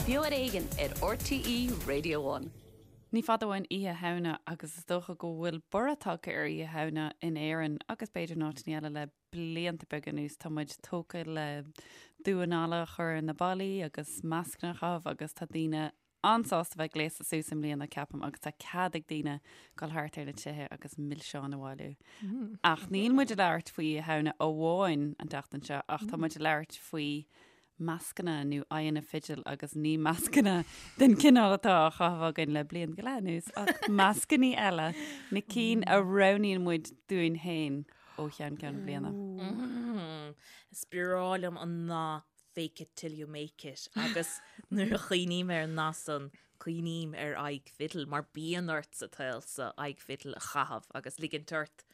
Beo ar Éigean ar RTÉ Radio One. Ní fada uainn Oíche Shamhna agus is dócha go bhfuil borradh tagtha ar Oíche Shamhna in Éirinn agus b'fhéidir in áiteanna eile le blianta beaga anuas. Tá muid tógtha le damhán alla a chur ar na ballaí agus mascanna a chaitheamh agus tá daoine an-sásta bheith gléasta suas i mbliana, ceapaim, agus tá cead ag daoine dul thart ar na tithe agus milseáin a bhailiú. Ach níl muid ag labhairt faoi Oíche Shamhna amháin an tseachtain seo, ach tá muid ag labhairt faoi mascanna nó aghaidheanna fidil agus ní mascanna den chineál atá á chaitheamh againn le bliain go leith anuas, ach mascannaí eile, na cinn a roghnaíonn muid dúinn féin ó cheann ceann na bliana. Is breá liom an nath fake it till you make it agus nuair a chuimhním ar an nath san, cuimhním ar aghaidh fidil mar bíonn ort sa tsaol so aghaidh fidil a chaitheamh agus ligint ort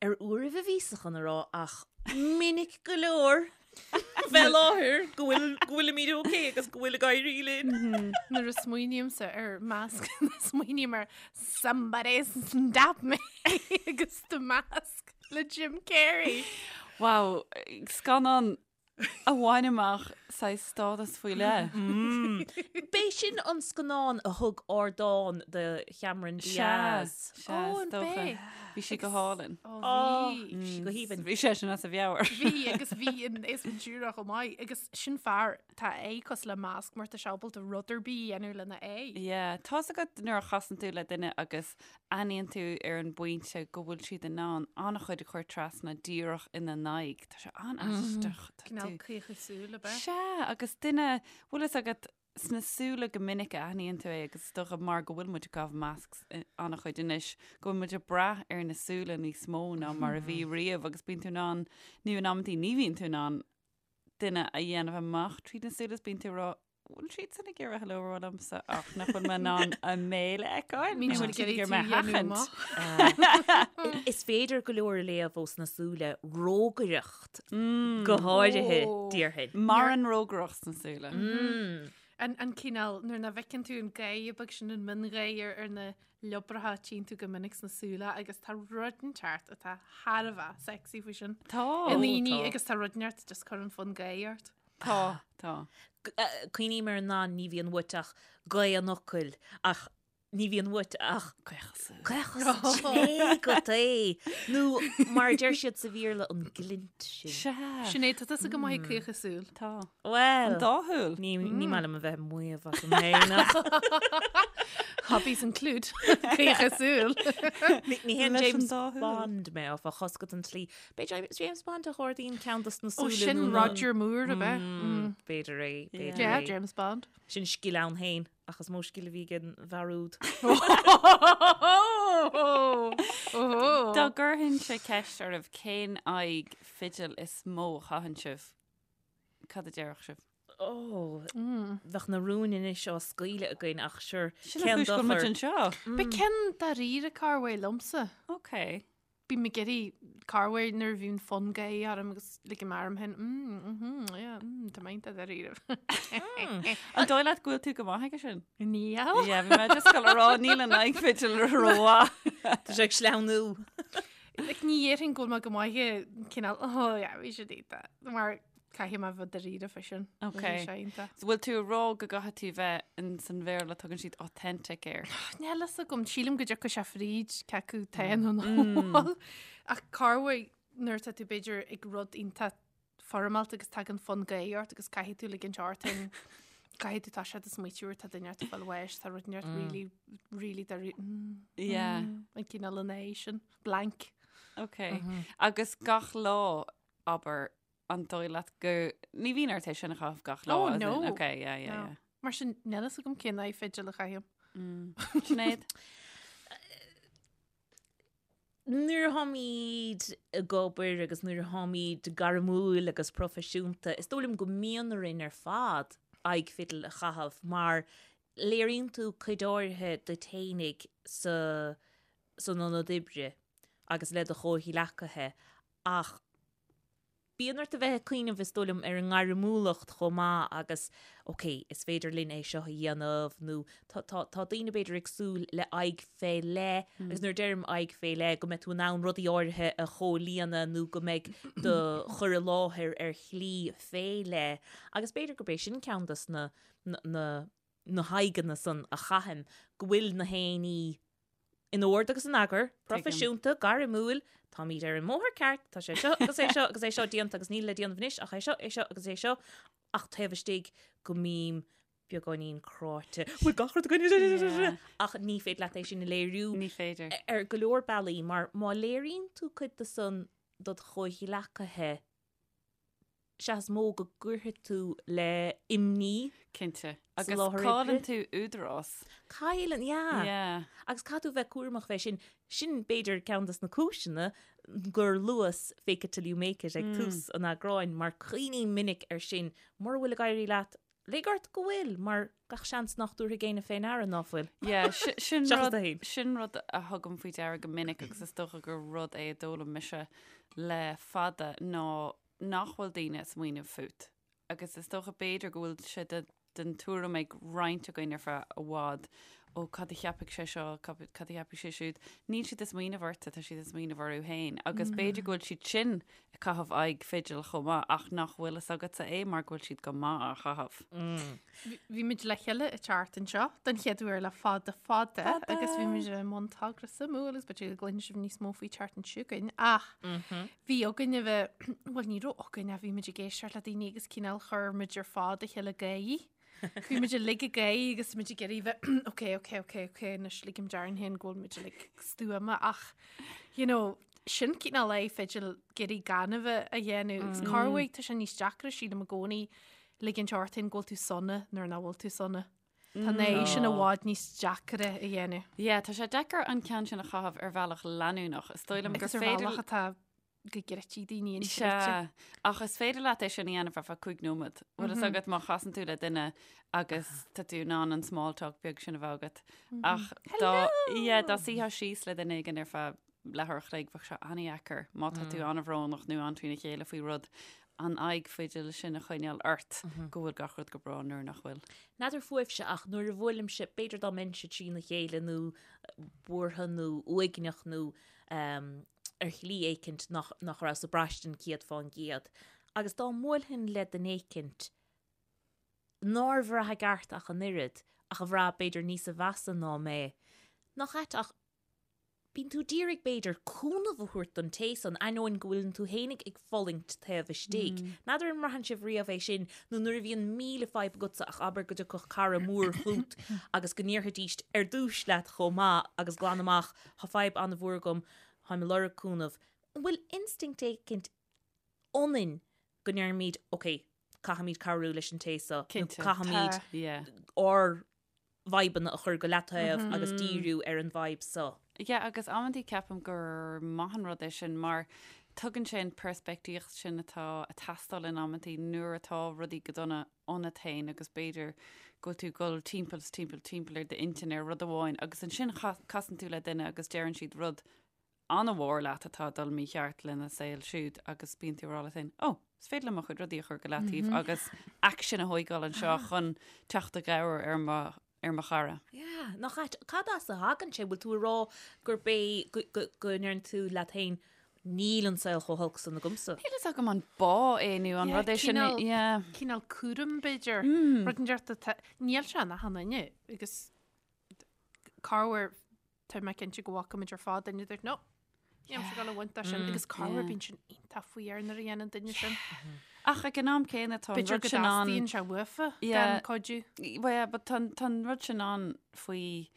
ar uairibh a bhíos chun a rá ach minic go leor bheith i láthair go bhfuil go bhfuilimid ok agus go bhfuil ag éirí linn. Nuair a smaoinímse ar masc, smaoiním ar somebody stop me agus The Mask. Le Jim Carrey. Wow, scannán a bhain amach saghas stádas faoi leith. B'é sin an scannán a thug ardán do Chameron Diaz. Sea, sea, is dócha. Bhí sí go hálainn. Ó, bhí. Bhí sí go haoibhinn. Bhí seisean as a mheabhair. Bhí, agus bhí an Ace Ventura chomh maith. Agus sin fear, tá a aghaidh cosúil le masc mar tá sé ábalta rud ar bith a dhéanamh lena aghaidh. Yeah, tá's agat nuair a chasann tú le duine agus aithníonn tú ar an bpointe go bhfuil siad in ann an-chuid a chur trasna díreach ina n-aghaidh. Tá sé an-aisteach. Tá Cineál tú- caochadh súl ab ea? Sea, agus duine, bhfuil fhios agat, sna súile go minic a aithníonn tú é agus is dócha mar go bhfuil muid ag caitheamh masks eh, an-chuid anois, go bhfuil muid ag brath ar na súile níos mó ná mar a bhí riamh agus bíonn tú in ann, nó in amantaí ní bhíonn tú in ann duine a dhéanamh amach tríd na súile is bíonn tú ag rá, bhfuil siad san ag iarraidh hello a rá liomsa ach nach bhfuil mé in ann a mbéal a fheiceáil? Níl Nó siad bhfuil ag siad ag iarraidh iarraidh tú mé a a dhéanamh sheachaint? amach. Is féidir go leor a léamh ós na súile, rógaireacht go háirithe, déarfainn. Maireann rógaireacht sna súile. An an cineál nuair nach bhfeiceann tú an gáire beag sin an miongháire ar na liobracha tchíonn tú go minic sna súile agus tá rud inteacht atá thar a bheith sexy faoi sin. Tá. I ndaoine tá. agus tá rud inteacht just cuireann fonn gáire ort. Tá, tá. Cuimhním ar an nath ní bhíonn uait ach gaoth an fhocail ach ní bhíonn uait ach Caochadh súl. caochadh súl agat é. Nó mar a deir siad sa Bhéarla an glint sin. Sea. Sinéad, tá tusa go maith ag caochadh súl. Tá. Well. An dá shúil. Ní ní maith liom a bheith ag maíomh asam féin ach Hobbies include caochadh súl. ní ní haon Leis an James dá shúil. Bond mé áfach tá a fhios agat an tslí B'é James Bond a ardaíonn ceann dos na Ó súile sin nó na- Roger Moore ab ea? Mm, B'fhéidir é, b'fhéidir Yeah, é. James Bond. Sin scil ann féin, ach is mó scil a bhí ag an bhfear úd. Dá gcuirfinnse ceist oraibh cén aghaidh fidil is mó a chaitheann sibh, cad a déarfadh sibh? Ó, bheadh na rúin anois á scaoileadh againn ach sure, Sin an cén chúis go bhfuil muid dochar? anseo. Ba ceann dáiríre corruair liomsa. Ok. Bím ag iarraidh corruair nuair a bhíonn fonn gáire orm agus ligim orm féin, mm, mhm, yeah, mm, tá mé iontach dáiríre. An dóigh leat go bhfuil tú go maith aige sin? Níl. Yeah, bhí mé just ag gabháil a rá, níl an aghaidh fidil rómhaith. Tá sé ag sleamhnú. Like, ní dhéarfainn go bhfuil mé go maith ag cineál, oh yeah, bhí sé iontach. Mar Caithfidh mé bheith dáiríre fé sin. Ok. Bhí sé iontach. So bhfuil tú ag rá go gcaithfidh tú bheith in san Bhéarla tugann siad authentic air. Níl fhios agam, sílim go dtiocfaidh sé fríd cé acu tá nó nach bhfuil. Ach corruair nuair atá tú b'fhéidir ag rud iontach foirmeálta agus tagann fonn gáire ort agus caithfidh tú ligint ort féin caithfidh tú tá sé do smaoitiú tá duine ort fáil bháis tá rud ort really really dáiríre Yeah. an cineál an é sin blank. Ok. Agus gach lá abair An dóigh leat go ní bhíonn ort é sin a chaitheamh gach lá? Oh, as in- no. Ok, yeah, yeah, No. yeah. Mar sin níl fhios agam cén aghaidh fidil a chaithim. Sinéad? Nuair a tháimid ag obair agus nuair a tháimid gairmiúil agus proifisiúnta, is dóigh liom go mbíonn orainn ar fad aghaidh fidil a chaitheamh mar léiríonn tú cuid áirithe duit fhéinig sa san ionad oibre agus le do chomhghleacaithe ach. Bíonn ort a bheith ag cuimhneamh, is dóigh liom, ar an ngairmiúlacht chomh maith agus ok, is féidir linn é seo a dhéanamh nó tá, tá, tá daoine b'fhéidir ag súil le aghaidh fé leith agus nuair a deirim aghaidh fé leith go mbeidh tú in ann rudaí áirithe a chomhlíonadh nó go mbeidh do chur i láthair ar shlí fé leith agus b'fhéidir gurb é sin ceann dos na, na, na, na haghaidheanna san a chaithim, go bhfuil na haon ní in ord agus in eagar, proifisiúnta, gairmiúil, táimid ar an mbóthar ceart, tá sé seo agus é seo agus é seo déanta agus níl le déanamh anois ach é seo, é seo agus é seo, ach taobh istigh go mbím beagáinín cráite, bhfuil gach rud againn, ach ní féidir leat é sin a léiriú. Ní féidir. Ar go leor bealaí, mar má léiríonn tú cuid de san dod chomhghleacaithe, sea is mó go gcuirfidh tú le imní. Cinnte. Agus cailleann tú údarás. Cailleann, yeah. Yeah. Agus caithfidh tú bheith cúramach fé sin. Sin b'fhéidir ceann des na cúiseanna gur luas fake it till you make it ag tús an eagráin mar cuimhním minic ar sin. Mura bhfuil ag éirí leat, lig ort go bhfuil mar gach seans nach dtabharfaidh éinne fé ndeara ná fuil. Yeah, sin rud, sin rud a thugaim faoi deara go minic agus is dócha gur rud é a d'fhoghlaim mise le fada ná nach bhfuil daoine ag smaoineamh fút. Agus is dócha b'fhéidir go bhfuil sé de, den tuairim ag roinnt againn ar feadh i bhfad, ó cad a cheapfaidh sé seo, cad a cheapfaidh sé siúd. Níl siad ag smaoineamh ortsa, tá siad ag smaoineamh orthu féin. Agus b'fhéidir go bhfuil siad sin ag caitheamh aghaidh fidil chomh maith ach nach bhfuil fhios agatsa é mar go bhfuil siad go maith á chaitheamh. Bhí muid le chéile an tseachtain seo don chéad uair le fada fada agus bhí muid i mbun togra suimiúil agus b'fhéidir go gcluinfidh sibh níos mó faoi an tseachtain seo chugainn ach bhí againn a bheith, bhuel ní raibh againn ach bhí muid ag éisteacht le daoine agus cineál chuir muid ar fad a chéile gáire. Bhí muid uilig ag gáire agus muid ag iarraidh bheith ok ok ok ok anois ligim darainn féin go bhfuil muid uilig stuama ach you know sin cineál aghaidh fidil ag iarraidh gan a bheith a dhéanamh agus corruair tá sé níos deacra sílim i gcónaí ligint ort féin go bhfuil tú sona nuair nach bhfuil tú sona. Tá an aghaidh sin i bhfad níos deacra a dhéanamh. Yeah, tá sé deacair an ceann sin a chaitheamh ar bhealach leanúnach. Is dóigh liom gur Agus ar féidir bhealach atá go gcreidfidh daoine inchreidte. Sea, ach is féidir leat é sin a dhéanamh ar feadh 5 nóiméad. Bhfuil fhios agat má chasann tú le duine agus tá tú in ann an small talk beag sin a bheith agat. Ach dá, yeah, dá suífeá síos le duine éigin ar feadh leathuair a chloig, bheadh sé an-dheacair má tá tú an-bhrónach nó an-trína chéile faoi rud, an aghaidh fidil sin a choinneáil ort go bhfuil gach rud go breá nuair nach bhfuil. N'fheadar fúibhse ach nuair a bhuailimse, b'fhéidir dá mbeinnse trína chéile nó buartha nó uaigneach nó ar shlí éicint nach, nach rabhas ag braistint 100%. Agus dá mbuailfinn le duine éicint nár bhraith i gceart ach an oiread, ach a bhraith b'fhéidir níosa mheasa ná mé, nach ait ach bíonn tú d'iarraidh b'fhéidir cúnamh a thabhairt don té san, ainneoin go bhfuileann tú fhéinig ag fulaingt taobh istigh. N'fheadar an mbraitheann sibh riamh é sin, nó nuair a bhíonn 1000 fadhb agatsa ach abair go dtiocfadh cara mór chút agus go ndéarfaidíst ar dtúis leat chomh maith agus glan amach, Tá fadhb an-mhór agam, táim ag lorg cúnamh. An bhfuil instinct éicint ionainn go ndeirimid, ok, caithfimid cabhrú leis an té seo, nó caithfimid ár bhfadhbanna a chur go leataobh agus díriú ar an bhfadhb seo. Yeah, agus amantaí ceapaim gur maith an rud é sin mar tugann sé an peirspictíocht sin atá ag teastáil in amantaí nuair atá rudaí go dona ionat féin agus b'fhéidir go bhfuil tú ag dul timpeall is timpeall timpeall ar d'intinn ar rud amháin agus ansin casann tú le duine agus deireann siad rud an-mhór leat atá ag dul mícheart lena saol siúd agus bíonn tú ag rá leat féin, 'Ó, is féidir liom mo chuid rudaí a chur go leataobh agus aicsean a thóigeáil anseo chun teacht i gcabhair ar mo ar mo chara. Yeah, nach ait, cad as a thagann sé? Bhfuil tú ag rá gurb é go, go, go ndeireann tú leat féin, níl an saol chomh holc san agamsa? Níl fhios agam an bá é nó an Yeah, rud é sin. cineál- Yeah. Cineál cúram b'fhéidir. Rud inteacht atá, níl sé in achan duine agus corruair tá mé cinnte go bhfaca muid ar fad duine a dúirt no, nílimse ag dul a bhaint as sin agus corruair bíonn sin iontach faoi nuair a dhéanann duine sin. Ach ag an am céanna tá an B'fhéidir rud go sin ann. dteastaíonn sé uafa Yeah. gan cuidiú. Well, yeah, but tá tá an rud sin ann faoi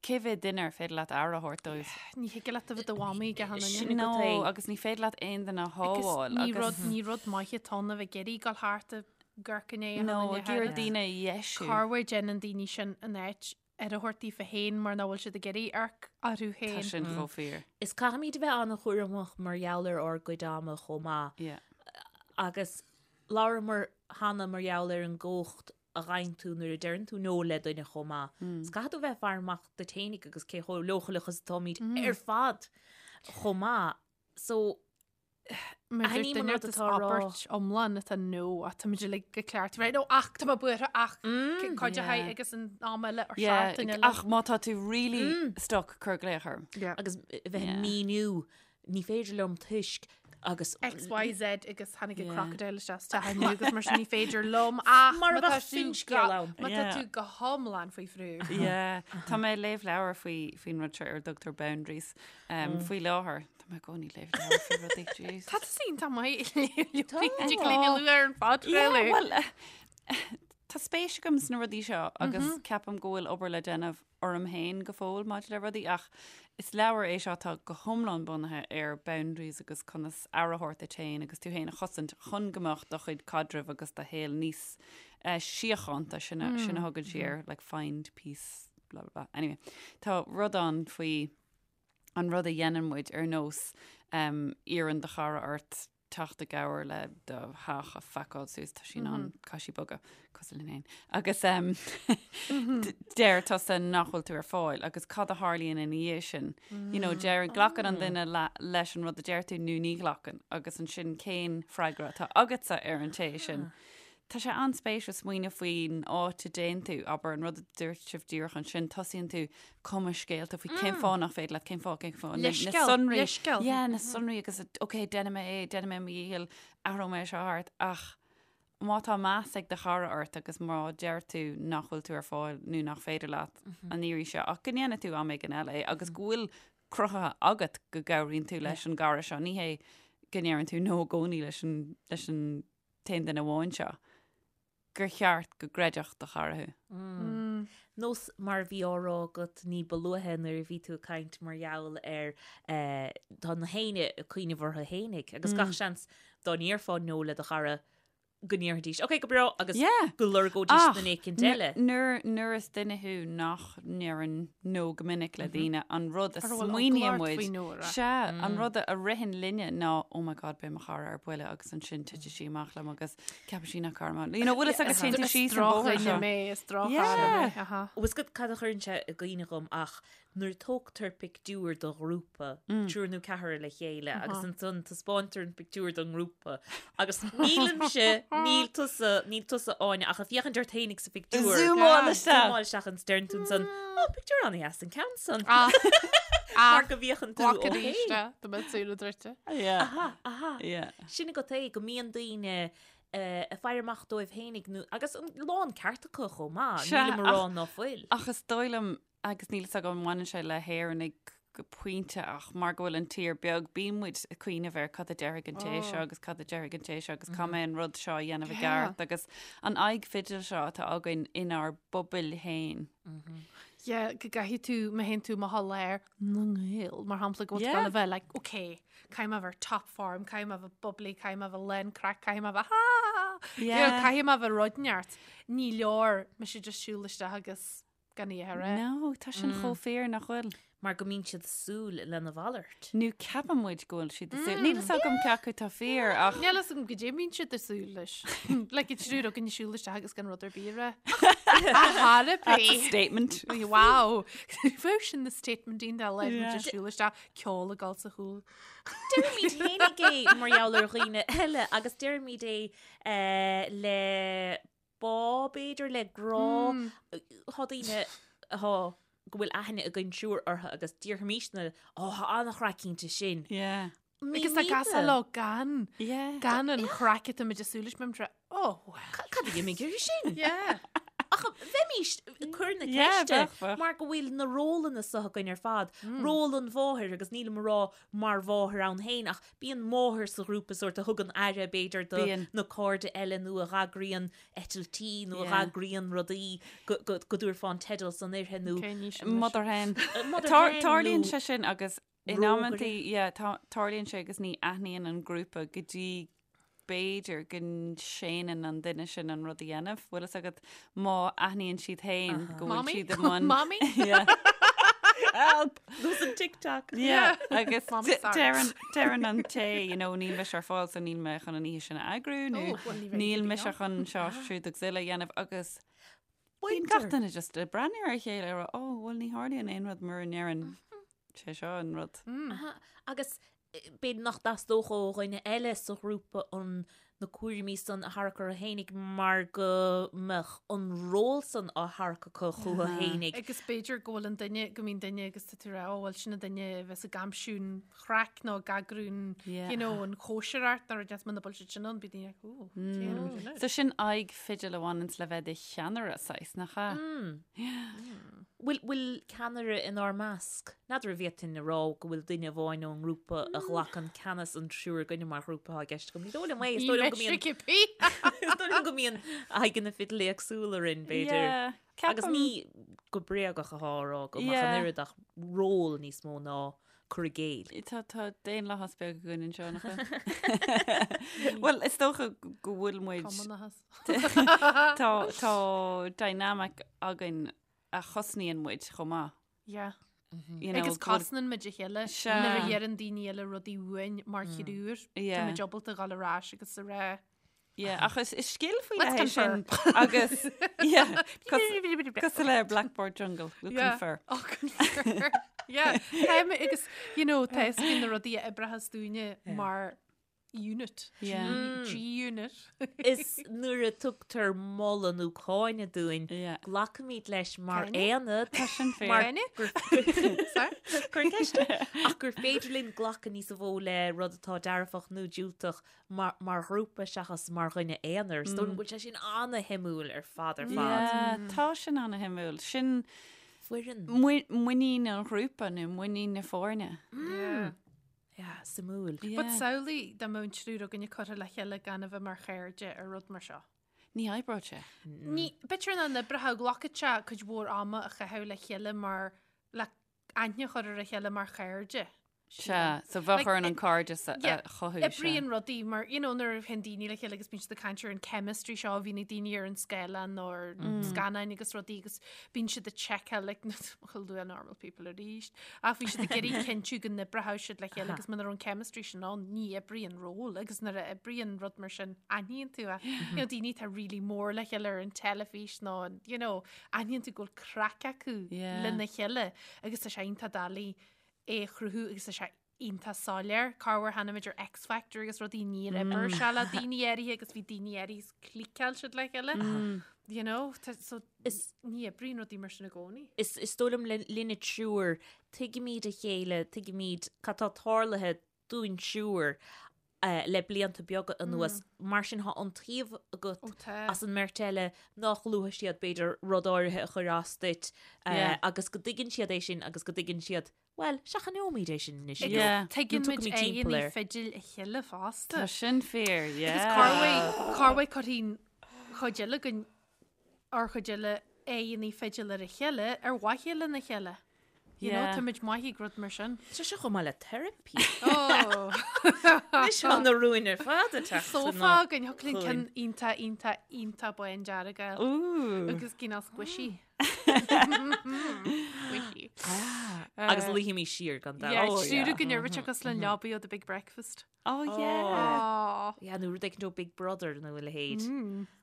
cé mhéad duine ar féidir leat aire a thabhairt dóibh. Ní thig leat a bheith do mhamaí ag achan duine. Sin No, agat é. agus ní féidir leat aon duine a Agus shábháil. ní agus- rud ní rud maith atá ann a bheith ag iarraidh dul thart ag amharc i ndiaidh achan No, duine ag iarraidh thart. daoine a dheisiú. Corruair déanann daoine sin in áit aire a thabhairt daofa féin mar nach bhfuil siad ag iarraidh amharc orthu Tá féin. sin chomh fíor. Is caithfimid a bheith an-chúramach mar gheall ar ár gcuid ama chomh maith. Yeah. Agus labhramar cheana mar gheall ar an gcumhacht a fhaigheann tú nuair a deireann tú no le duine chomh maith. Is caithfidh tú a bheith ag faire amach duit fhéinig agus cé chomh leochaileach is atáimid ar fad chomh maith. So. Aithním an rud atá á rá. Abairt iomlán atá no ach tá muid uilig go ceart. Right, no, ach tá mé buartha ach cuid a haghaidh agus an am eile ar seachtain eile. Ach má tá tú really stuck cuir glaoch orm. Agus bheith ag míniú ní féidir liom toisc agus X, Y, Z agus tháinig an crocodile isteach sa teach inniu agus mar sin ní féidir liom ach Mar a bheadh finscéal ann. Má tá tú go hiomlán faoi bhrú. Yeah. Tá mé ag léamh leabhar faoi faoin rud seo ar a dtugtar boundaries faoi láthair. Tá mé i gcónaí ag léamh leabhar faoi rudaí, jeez. Tá tú iontach maith ag léamh ar an phodchraoladh. Well, tá spéis agam sna rudaí seo agus ceapaim go bhfuil obair le déanamh orm féin go fóill maidir le rudaí ach is leabhar é seo atá go hiomlán bunaithe ar boundaries agus conas aire a thabhairt duit féin agus tú féin a chosaint chun go mbeadh do chuid caidrimh agus do shaol níos eh, síochánta sin a, sin a thugann sí air like find peace blah blah blah. Anyway, tá rud ann faoi an rud a dhéanann muid ar nós um, iarrann do chara ort teacht i gcabhair le do theach a phacáil suas, tá sí in ann, caithfidh sí bogadh, cosúil linn féin. Agus um, deir tusa nach bhfuil tú ar fáil agus cad a tharlaíonn ina dhiaidh sin? You know, deir, glacann an duine le, leis an rud a deir tú nó ní ghlacann agus ansin cén freagra atá agatsa ar an té sin. Tá sé an-spéisiúil smaoineamh faoin áit a dtéann tú, abair, an rud a dúirt sibh díreach ansin, tosaíonn tú ag cumadh scéalta faoi cén fáth nach féidir leat, cén fáth, cén fáth, na Leithscéal, sonraí. leithscéal. Yeah, na sonraí agus, ok, déanfaidh mé é, déanfaidh mé mo dhícheall, athróidh mé seo thart, ach má tá meas ag do chara ort agus má deir tú nach bhfuil tú ar fáil nó nach féidir leat an iarraidh seo, ach go ndéanfaidh tú am éigin eile é agus go bhfuil cruthaithe agat go gcabhraíonn tú leis an gcara seo, ní hé go ndeireann tú no i gcónaí leis an, leis an t-aon duine amháin seo, gur cheart go gcreidfeadh do chara thú. Nós mar a bhí á rá agat ní ba luaithe nuair a bhí tú ag caint mar gheall ar tá na héinne ag cuimhneamh orthu fhéinig agus gach seans dá ndéarfá no le do chara go ndéarfaidís ok go breá agus go lorgóidís duine éicint eile. Nuair nuair is duine thú nach ndeireann no go minic le daoine an rud a smaoiníonn muid sea an rud a ritheann linne ná oh my god beidh mo chara ar buile agus ansin titfidh sí amach liom agus ceapfaidh sí nach cara mé. You know, bhfuil fhios agat téann tú síos an bóthar seo. mé is droch-chara mé. Aha. Bhfuil fhios agat cad a chuireann sé i gcuimhne dhom ach nuair a tógtar pictiúr do ghrúpa, triúr nó ceathrar le chéile agus ansan taispeántar an pictiúr don ngrúpa agus nílimse, níl tusa, níl tusa Áine ach ag féachaint ort fhéinig sa phictiúr. Zúmáil isteach. Zúmáil isteach agus deireann tú ansan, ó, pictiúr an-dheas an ceann san. Ah. Mar go bhféachann tú Glac ó arís fhéin. de, do mbeadh súile druidte. Yeah. Aha, aha. Yeah. Sin agat é, go mbíonn daoine eh, ag faire amach dóibh fhéinig nó, agus an lán ceart acu chomh maith, Sea, nílim a rá ach- ná fuil. Ach is dóigh liom, agus níl fhios agam an mbaineann sé le hÉireannaigh go pointe ach mar go bhfuil an tír beag, bíonn muid ag cuimhneamh ar cad a déarfaidh an té seo agus cad a déarfaidh an té seo agus caithfidh mé an rud seo a dhéanamh i gceart agus an aghaidh fidil seo atá againn inár bpobail féin. Yeah, go gcaithfidh tú, má théann tú amach i lár na nGael, mar shampla, go bhfuil tú Yeah. ag gabháil a bheith like, okay, caithfidh mé a bheith ar top form, caithfidh mé a bheith bubbly, caithfidh mé a bheith lán craic, caithfidh mé a bheith ha ha ha, you know, Yeah. caithfidh mé a bheith rud neart. Ní leor mise just siúl isteach agus gan í a rá. No, tá sin chomh fíor nach bhfuil. Mar go mbíonn siad ag súil lena mhalairt. Nó ceapann muid go bhfuil siad ag súil. Níl fhios agam cé acu atá fíor ach. Níl fhios agam goidé a mbíonn siad ag súil leis. Like an triúr againn ag siúl isteach agus gan rud ar bith a rá. Ach That's a bith. statement. Wow. Bheadh sin na statement iontach le muid ag siúl isteach ceol ag dul sa chúl. Deirimid fhéinig é mar gheall ar dhaoine eile agus deirimid é eh, le bá, b'fhéidir, le grá. Tá daoine atá go bhfuil aithne againn triúr orthu agus déarfaimisne, ó, tá an-chraic inti sin. Yeah. Agus tá gasa leo gan, Yeah. gan an chraic atá muid ag súil leis, bíonn muid, oh, well. Cad a d'imigh uirthi sin? Yeah. Ach bheimis ag cur na Yeah, ceiste bheadh, bheadh. mar go bhfuil na rólanna seo againn ar fad. Ról an mháthair agus nílim a rá mar mháthair ann féin ach bíonn máthair sa ghrúpa sórt a thugann aire b'fhéidir do Bíonn. na cairde eile nó a dh'eagraíonn eitiltí nó a Yeah. dh'eagraíonn rudaí go go go dtabharfá an teideal san uirthi nó Okay, ní sin leis. Mother hen. Mother Tar- hen Tarlaíonn nó sé sin agus in rógaire. amantaí yeah, tá- tarlaíonn sé agus ní aithníonn an grúpa go dtí b'fhéidir go séanann an duine sin an rud a dhéanamh. Bhfuil fhios agat má aithníonn siad féin go bhfuil Mommy? siad i mbun. Mommy? Yeah. Help! Nós an TikTok. Yeah, agus Mommy, sorry. deireann deireann an té, you know, níl mise ar fáil so níl mé chun an oíche sin a eagrú nó Oh, well, ní bheidh níl tú mise ann. chun seo siúd agus uile a dhéanamh agus bíonn gach duine just ag breathnú ar a chéile ag rá, oh, well ní tharlaíonn aon rud mura ndeireann sé seo an rud. Aha, agus. b'fhéidir nach dteastódh ó dhuine eile sa ghrúpa an na cúraimí san a tharrac orthu fhéinig mar go mbeadh an ról san á tharrac acu chucu fhéinig. Agus b'fhéidir go bhfuil an duine, go mbíonn duine agus tá tú ag rá, ó bhuel sin an duine a bheas ag aimsiú an chraic nó ag eagrú an, you know, an chóisireacht nó rud muna bhfuil siad sin ann, bíonn daoine like, ó, déanfaidh muid sin. So sin aghaidh fidil a bhaineanns le bheith i do cheannaire, saghas, nach ea? Bhfuil, bhfuil ceannaire inár measc? N'fheadar an bhféadfainn a rá go bhfuil duine amháin ón ngrúpa a ghlacann ceannas an triúr againne mar ghrúpa atá i gceist agam. Ní dóigh liom é, is dóigh liom go mbíonn, is dóigh liom go mbíonn aghaidheanna fidil éagsúla orainn, b'fhéidir. Yeah, Agus ceapaim. ní go bréagach atá á rá agam ach an Yeah. oiread ach ról níos mó ná cur i gcéill. Tá, tá daonlathas beag againn anseo, nach bhfuil? Bhuel, is dócha go bhfuil muid, Cumannachas. tá, tá dynamic againn a chosnaíonn muid chomh maith. Yeah. You know, Agus go bhfuil- cosnaíonn muid a chéile Sea. nuair a dheireann daoine eile rudaí uainn mar thriúr. Yeah. Tá muid ábalta dhul ar ais agus a rá. Yeah, ach is, is scil faoi Let's leith é sin confer. agus yeah, cosúil le Blackboard Jungle, we'll Yeah. confer. Oh, confer. Yeah. Táim agus, you know, tá fhios againn na rudaí a oibreochas dúinne mar unit. Yeah. G-unit. Is nuair a tugtar moladh nó cáineadh dúinn, Yeah. glacaimid leis mar Cáineadh? aonad. Tá sin fíor. Mar Cáineadh? gur- Sorry? Cuir ceist. Ach gur féidir linn glacadh níos mó le rud atá dearfach nó diúltach mar, mar ghrúpa seachas mar dhuine aonair. Is dóigh liom go bhfuil sé sin ana-shuimiúil ar fad ar fad. Yeah, tá sin ana-shuimiúil. Sin Foireann. mui- muinín an ghrúpa nó muinín na foirne. Yeah. Yeah, suimiúil. Yeah. But samhlaigh dá mbeadh an triúr againne curtha le chéile gan a bheith mar chairde ar rud mar seo. Ní oibreodh sé. Ní, b'fhéidir nach n-oibreodh, glacfadh sé cuid mhór ama a chaitheamh le chéile mar, le aithne a chur ar a chéile mar chairde. Sea, so bheadh Like, orainn an cairdeas a yeah, a chothú. sea. Oibríonn rudaí mar, you know, nuair a théann daoine le chéile agus bíonn siad ag caint ar an chemistry seo a bhíonn ag daoine ar an scáileán nó ar scannáin agus rudaí agus bíonn siad ag seiceáil like, chuil luath normal people arís ach bhí siad ag iarraidh cinntiú go n-oibreodh siad le chéile agus muna raibh an chemistry sin ann ní oibríonn ról agus nuair a oibríonn rud mar sin aithníonn tú é. You know, daoine atá really mór le chéile ar an teilifís nó an, you know, aithníonn tú go bhfuil craic acu Yeah. lena chéile agus tá sé iontach doiligh é a chruthú agus tá sé iontach soiléir. Corruair chonaic muid ar X Factor agus rudaí níor oibir sé le daoine áirithe agus bhí daoine áirithe is cliceáil siad le chéile. You know, tá- so Is- ní oibríonn rudaí mar sin i gcónaí. Is, is dóigh liom le- linne triúr, tuigimid a chéile, tuigimid cad tá tarlaithe dúinn triúr eh, le blianta beaga anuas. Mar sin tá iontaoibh agat Ó, tá. as an mbeirt eile nach luafaidh siad b'fhéidir rud áirithe a chuir as duit eh, Yeah. agus go dtuigeann siad é sin agus go dtuigeann siad Bhuel, seachnóimid é sin anois. Agus Yeah. tuigeann Nó muid tugaimid timpeall aghaidheanna air. fidil a chéile fosta. Tá sin fíor, yeah. Agus corruair, corruair cuirfidh an chuid eile againn, ár chuid eile aghaidheanna fidil ar a chéile ar mhaithe lena chéile. You know, Yeah. tá muid maith ag rud mar sin. Tá sé chomh maith le teiripí. Oh. Anois tá na rúin ar fad ag teacht Sófá againn, thiocfadh linn ceann iontach, iontach, iontach bán dearg a fháil. Ooh. Agus cineál squishy. Squishy. Agus luífimid siar gan dabht. Yeah, Oh, triúr yeah. againn ar rite cosúil le leabaidh ó The Big Breakfast. Oh, yeah. Oh. Yeah, nó rud éicint ó Big Brother nó a leithéid.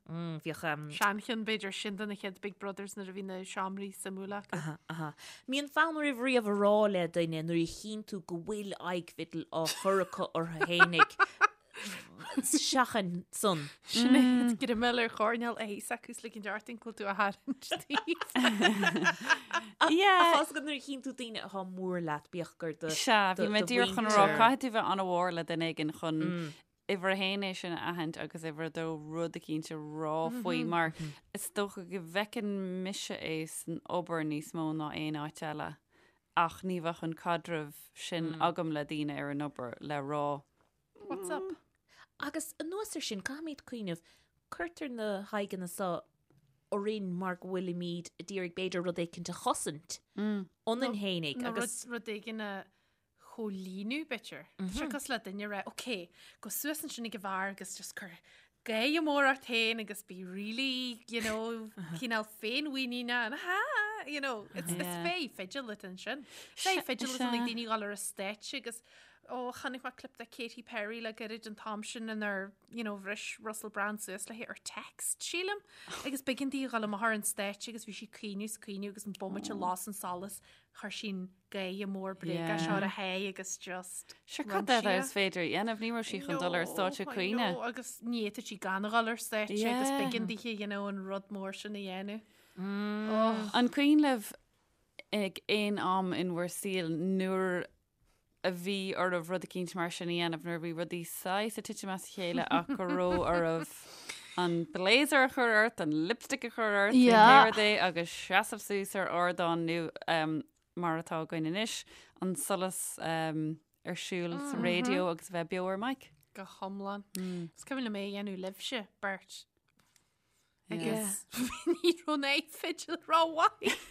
Mm, Bhíodh um, Seancheann b'fhéidir sin de na chéad Big Brothers nuair a bhí na seomraí suimiúla acu. Aha, aha. Mbíonn fonn oraibh riamh a rá le duine nuair a chíonn tú go bhfuil aghaidh fidil á chur acu orthu fhéinig Seachain san. Sin é greim ar choirnéal a thaos acu is ligint ort an tú a tharraingt díobh. Yeah. Tá fhios agat nuair a chíonn tú daoine atá mór leat bíodh gur do Sea, bhí do- mé do díreach chun a rá, mhuintir. caithfidh tú bheith an-mhór le duine éigin chun uimhir a haon é sin a aithint agus uimhir a dó rud eicínt a rá faoi mar is dócha go bhfeiceann mise é san obair níos mó ná aon áit eile ach ní bheadh an caidreamh sin agam le daoine ar an obair le rá What's up? Agus anuas ar sin, caithfimid cuimhneamh, cuirtear na haghaidheanna seo orainn mar go bhfuilimid ag iarraidh b'fhéidir rud éicint a chosaint ionainn fhéinig Nó agus rud, rud éigin a chomhlíonadh, b'fhéidir. Tá sé cosúil le duine a rá, ok, gabh suas ansin ag an bheár agus just cuir gáire mór ort féin agus bí really, you know, cineál féinmhuiníneach and ha, you know, it's, it's Yeah. fé fidil atá ansin. Fé fidil atá ag daoine dul ar an stáitse agus. Ó, chonaic mé clip de Katy Perry le gairid an t-am sin inar, you know, bhris Russell Brand suas léi ar text, sílim. Agus b'éigean di a dhul amach ar an stáitse agus bhí sí ag caoineadh is ag caoineadh agus an bomaite a las an solas, chuir sí an gáire mór bréagach seo ar a haghaidh agus just Sure, cad eile is féidir a dhéanamh? Ní raibh sí chun dul ar stáitse ag caoineadh. Agus ní fhéadfadh sí gan a dhul ar stáitse agus b'éigean dithe, you know, an rud mór sin a dhéanamh. Oh. An cuimhin libh ag aon am in bhur saol nuair a bhí oraibh rud eicínt mar sin a dhéanamh nuair a bhí rudaí saghas ag titim as a chéile ach go raibh oraibh an blazer a chur ort, an lipstick a chur ort, nó pé rud é agus seasamh suas ar ardán nó um, mar atá againn anois, an solas um, ar siúl sa raidió agus a bheith beo ar mic. Go hiomlán. Is cuimhin liom é a dhéanamh libhse, beirt. Agus ní raibh an aghaidh fidil rómhaith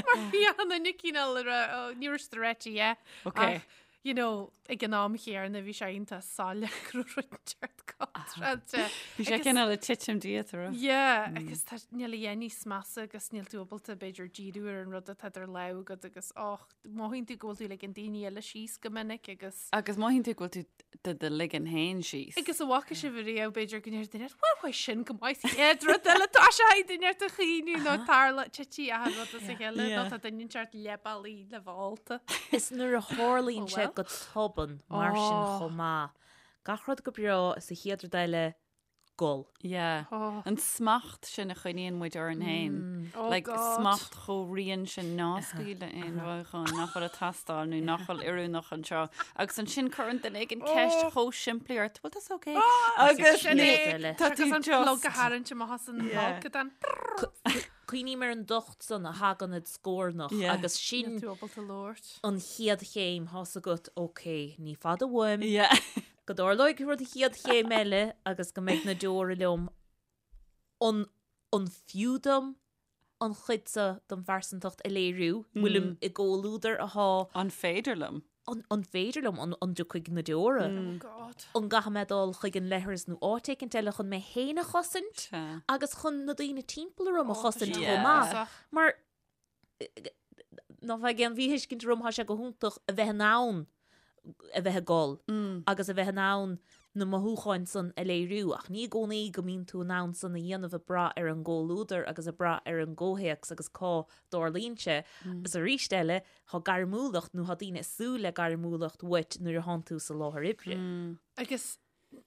mar bhí an duine cineál a rá, "Ó, ní raibh siad réitithe. Ok. Ach, you know, ag an am chéanna bhí sé iontach soiléir go raibh rud inteacht contráilte. Bhí sé cineál ag titim díot, a raibh? Yeah, agus tá níl a dhath níos measa agus níl tú ábalta b'fhéidir díriú ar an rud atá idir lámha agat agus och, mothaíonn tú go bhfuil tú ag ligean daoine eile síos go minic agus. Agus mothaíonn tú go bhfuil tú do do ligean féin síos. Agus an bhfaca sibh ariamh b'fhéidir go ndeir duine bhuel bhuel sin go maith sa chéad rud eile tá sé ag duine ort a chaoineadh nó tarla titfidh achan rud as a chéile nó tá duine inteacht leath bealaigh le bheith ólta. Is nuair a tharlaíonn sé go tobann mar sin chomh maith. Gach rud go breá is an chéad rud eile gol. Yeah. Oh. An smacht sin a choinníonn muid orainn féin. Oh Like, God. smacht chomh righin sin ná scaoil le aon mhothúchán nach bhfuil ag teastáil nó nach bhfuil oiriúnach anseo. Agus ansin cuireann duine éigin ceist Oh. chomh simplí ort, bhfuil tusa okay? Oh, Agus sin ní- é. eile. tá tú Agus an plug a just- tharraingt amach as an Yeah. bhfolcadán. Cuimhním ar an dtocht san a thagann id scornach Yeah. agus Níl sin tú ábalta labhairt. an chéad chéim tá's agat, ok, ní fada uaim. Yeah. Go dtarlóidh rud an chéad chéim eile agus go mbeidh na deora liom, an an fiú dom an chuid seo den phearsantacht a léiriú? Bhfuilim i gcomhluadar athá. An féidir liom? An an féidir liom? An an dtiocfaidh na deora? Oh God. An gcaithfidh mé dul chuig an leithreas nó áit éicint eile chun mé féin a chosaint Sea. agus chun na daoine timpeall orm a Oh, tá chosaint sé chomh maith? uafásach. Mar Ná faigh aon mhíthuiscint orm, tá sé go hiontach a bheith in ann a bheith ag gol agus a bheith in ann na mothúcháin san a léiriú, ach ní i gcónaí go mbíonn tú in ann san a dhéanamh ag brath ar an gcomhluadar agus ag brath ar an gcomhthéacs agus cá dtarlaíonn sé. Agus arís eile, tá gairmiúlacht nó tá daoine ag súil le gairmiúlacht uait nuair a thánn tú sa láthair oibre. Agus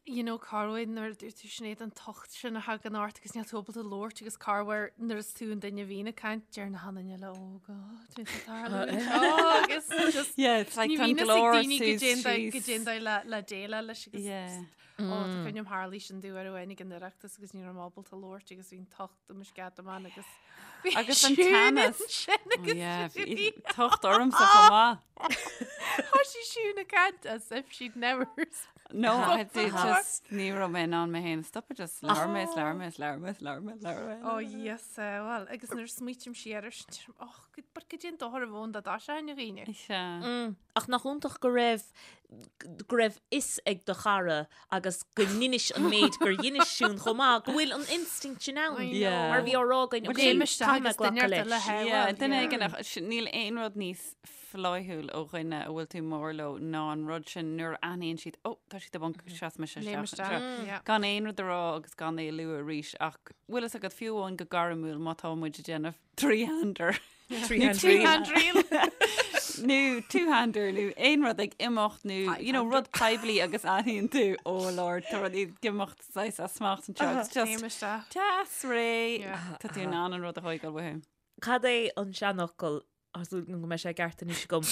you know corruair nuair a dúirt tú Sinéad an tocht sin a thagann ort agus níl tú ábalta labhairt agus corruair nuair is tú an duine a bhíonn ag caint deir na haon duine eile oh God bhí sé tarlú anseo agus just Yeah, it's like ní tá an bhíonn fhios ag glór daoine go suas dtéann síos. go dtéann dóibh le le déileáil leis agus Yeah. ó tá cuimhne agam tharlaigh sin domh uair amháin ag an Oireachtas agus ní raibh mé ábalta labhairt agus bhí an tocht i mo sceadamán agus bhí Agus an Siún teannas. ansin Oh, agus yeah, bhí bhí tocht ormsa chomh maith. Thoisigh Siún ag caint as if she'd never No, I did before. just ní raibh mé in ann mé féin a stopadh, just labhair mé, is labhair mé, is labhair mé, is labhair mé, is labhair mé. Oh yes, well, agus nuair a smaoiním siar air sin, deirim, oh, but goidé an dochar a bheadh ann dá dtoiseoinn a dhaoine. Sea. Ach nach iontach go raibh go raibh fhios ag do chara agus go ndeinis an méid gur dheinis Siún chomh maith, go bhfuil an instinct sin ann. I know. Yeah. Mar bhí á rá againn, Well, ok, Léim isteach caithfidh mé agus duine glacadh ort eile leis. a Yeah, well, duine yeah. éigin ach sin- níl aon rud níos flaithiúil ó dhuine a bhfuil tú mór leo ná an rud sin nuair a aithníonn siad, oh, tá siad i bponc, seas mise Léim isteach isteach, anseo. yeah. Gan aon rud a rá agus gan é a lua arís ach bhfuil fhios agat fiú amháin go gairmiúil má tá muid ag déanamh three-hander. Three-hand reel. Nó two-hander nó aon rud ag imeacht nó you know, rud poiblí agus aithníonn tú oh Lord tá rudaí ag imeacht saghas as smacht anseo agus Léim just isteach. deas réidh Yeah. tá tú in ann an rud a thógáil uathu. Cad é an seanfhocal, tá súil agam go mbeidh sé ceart anois agam,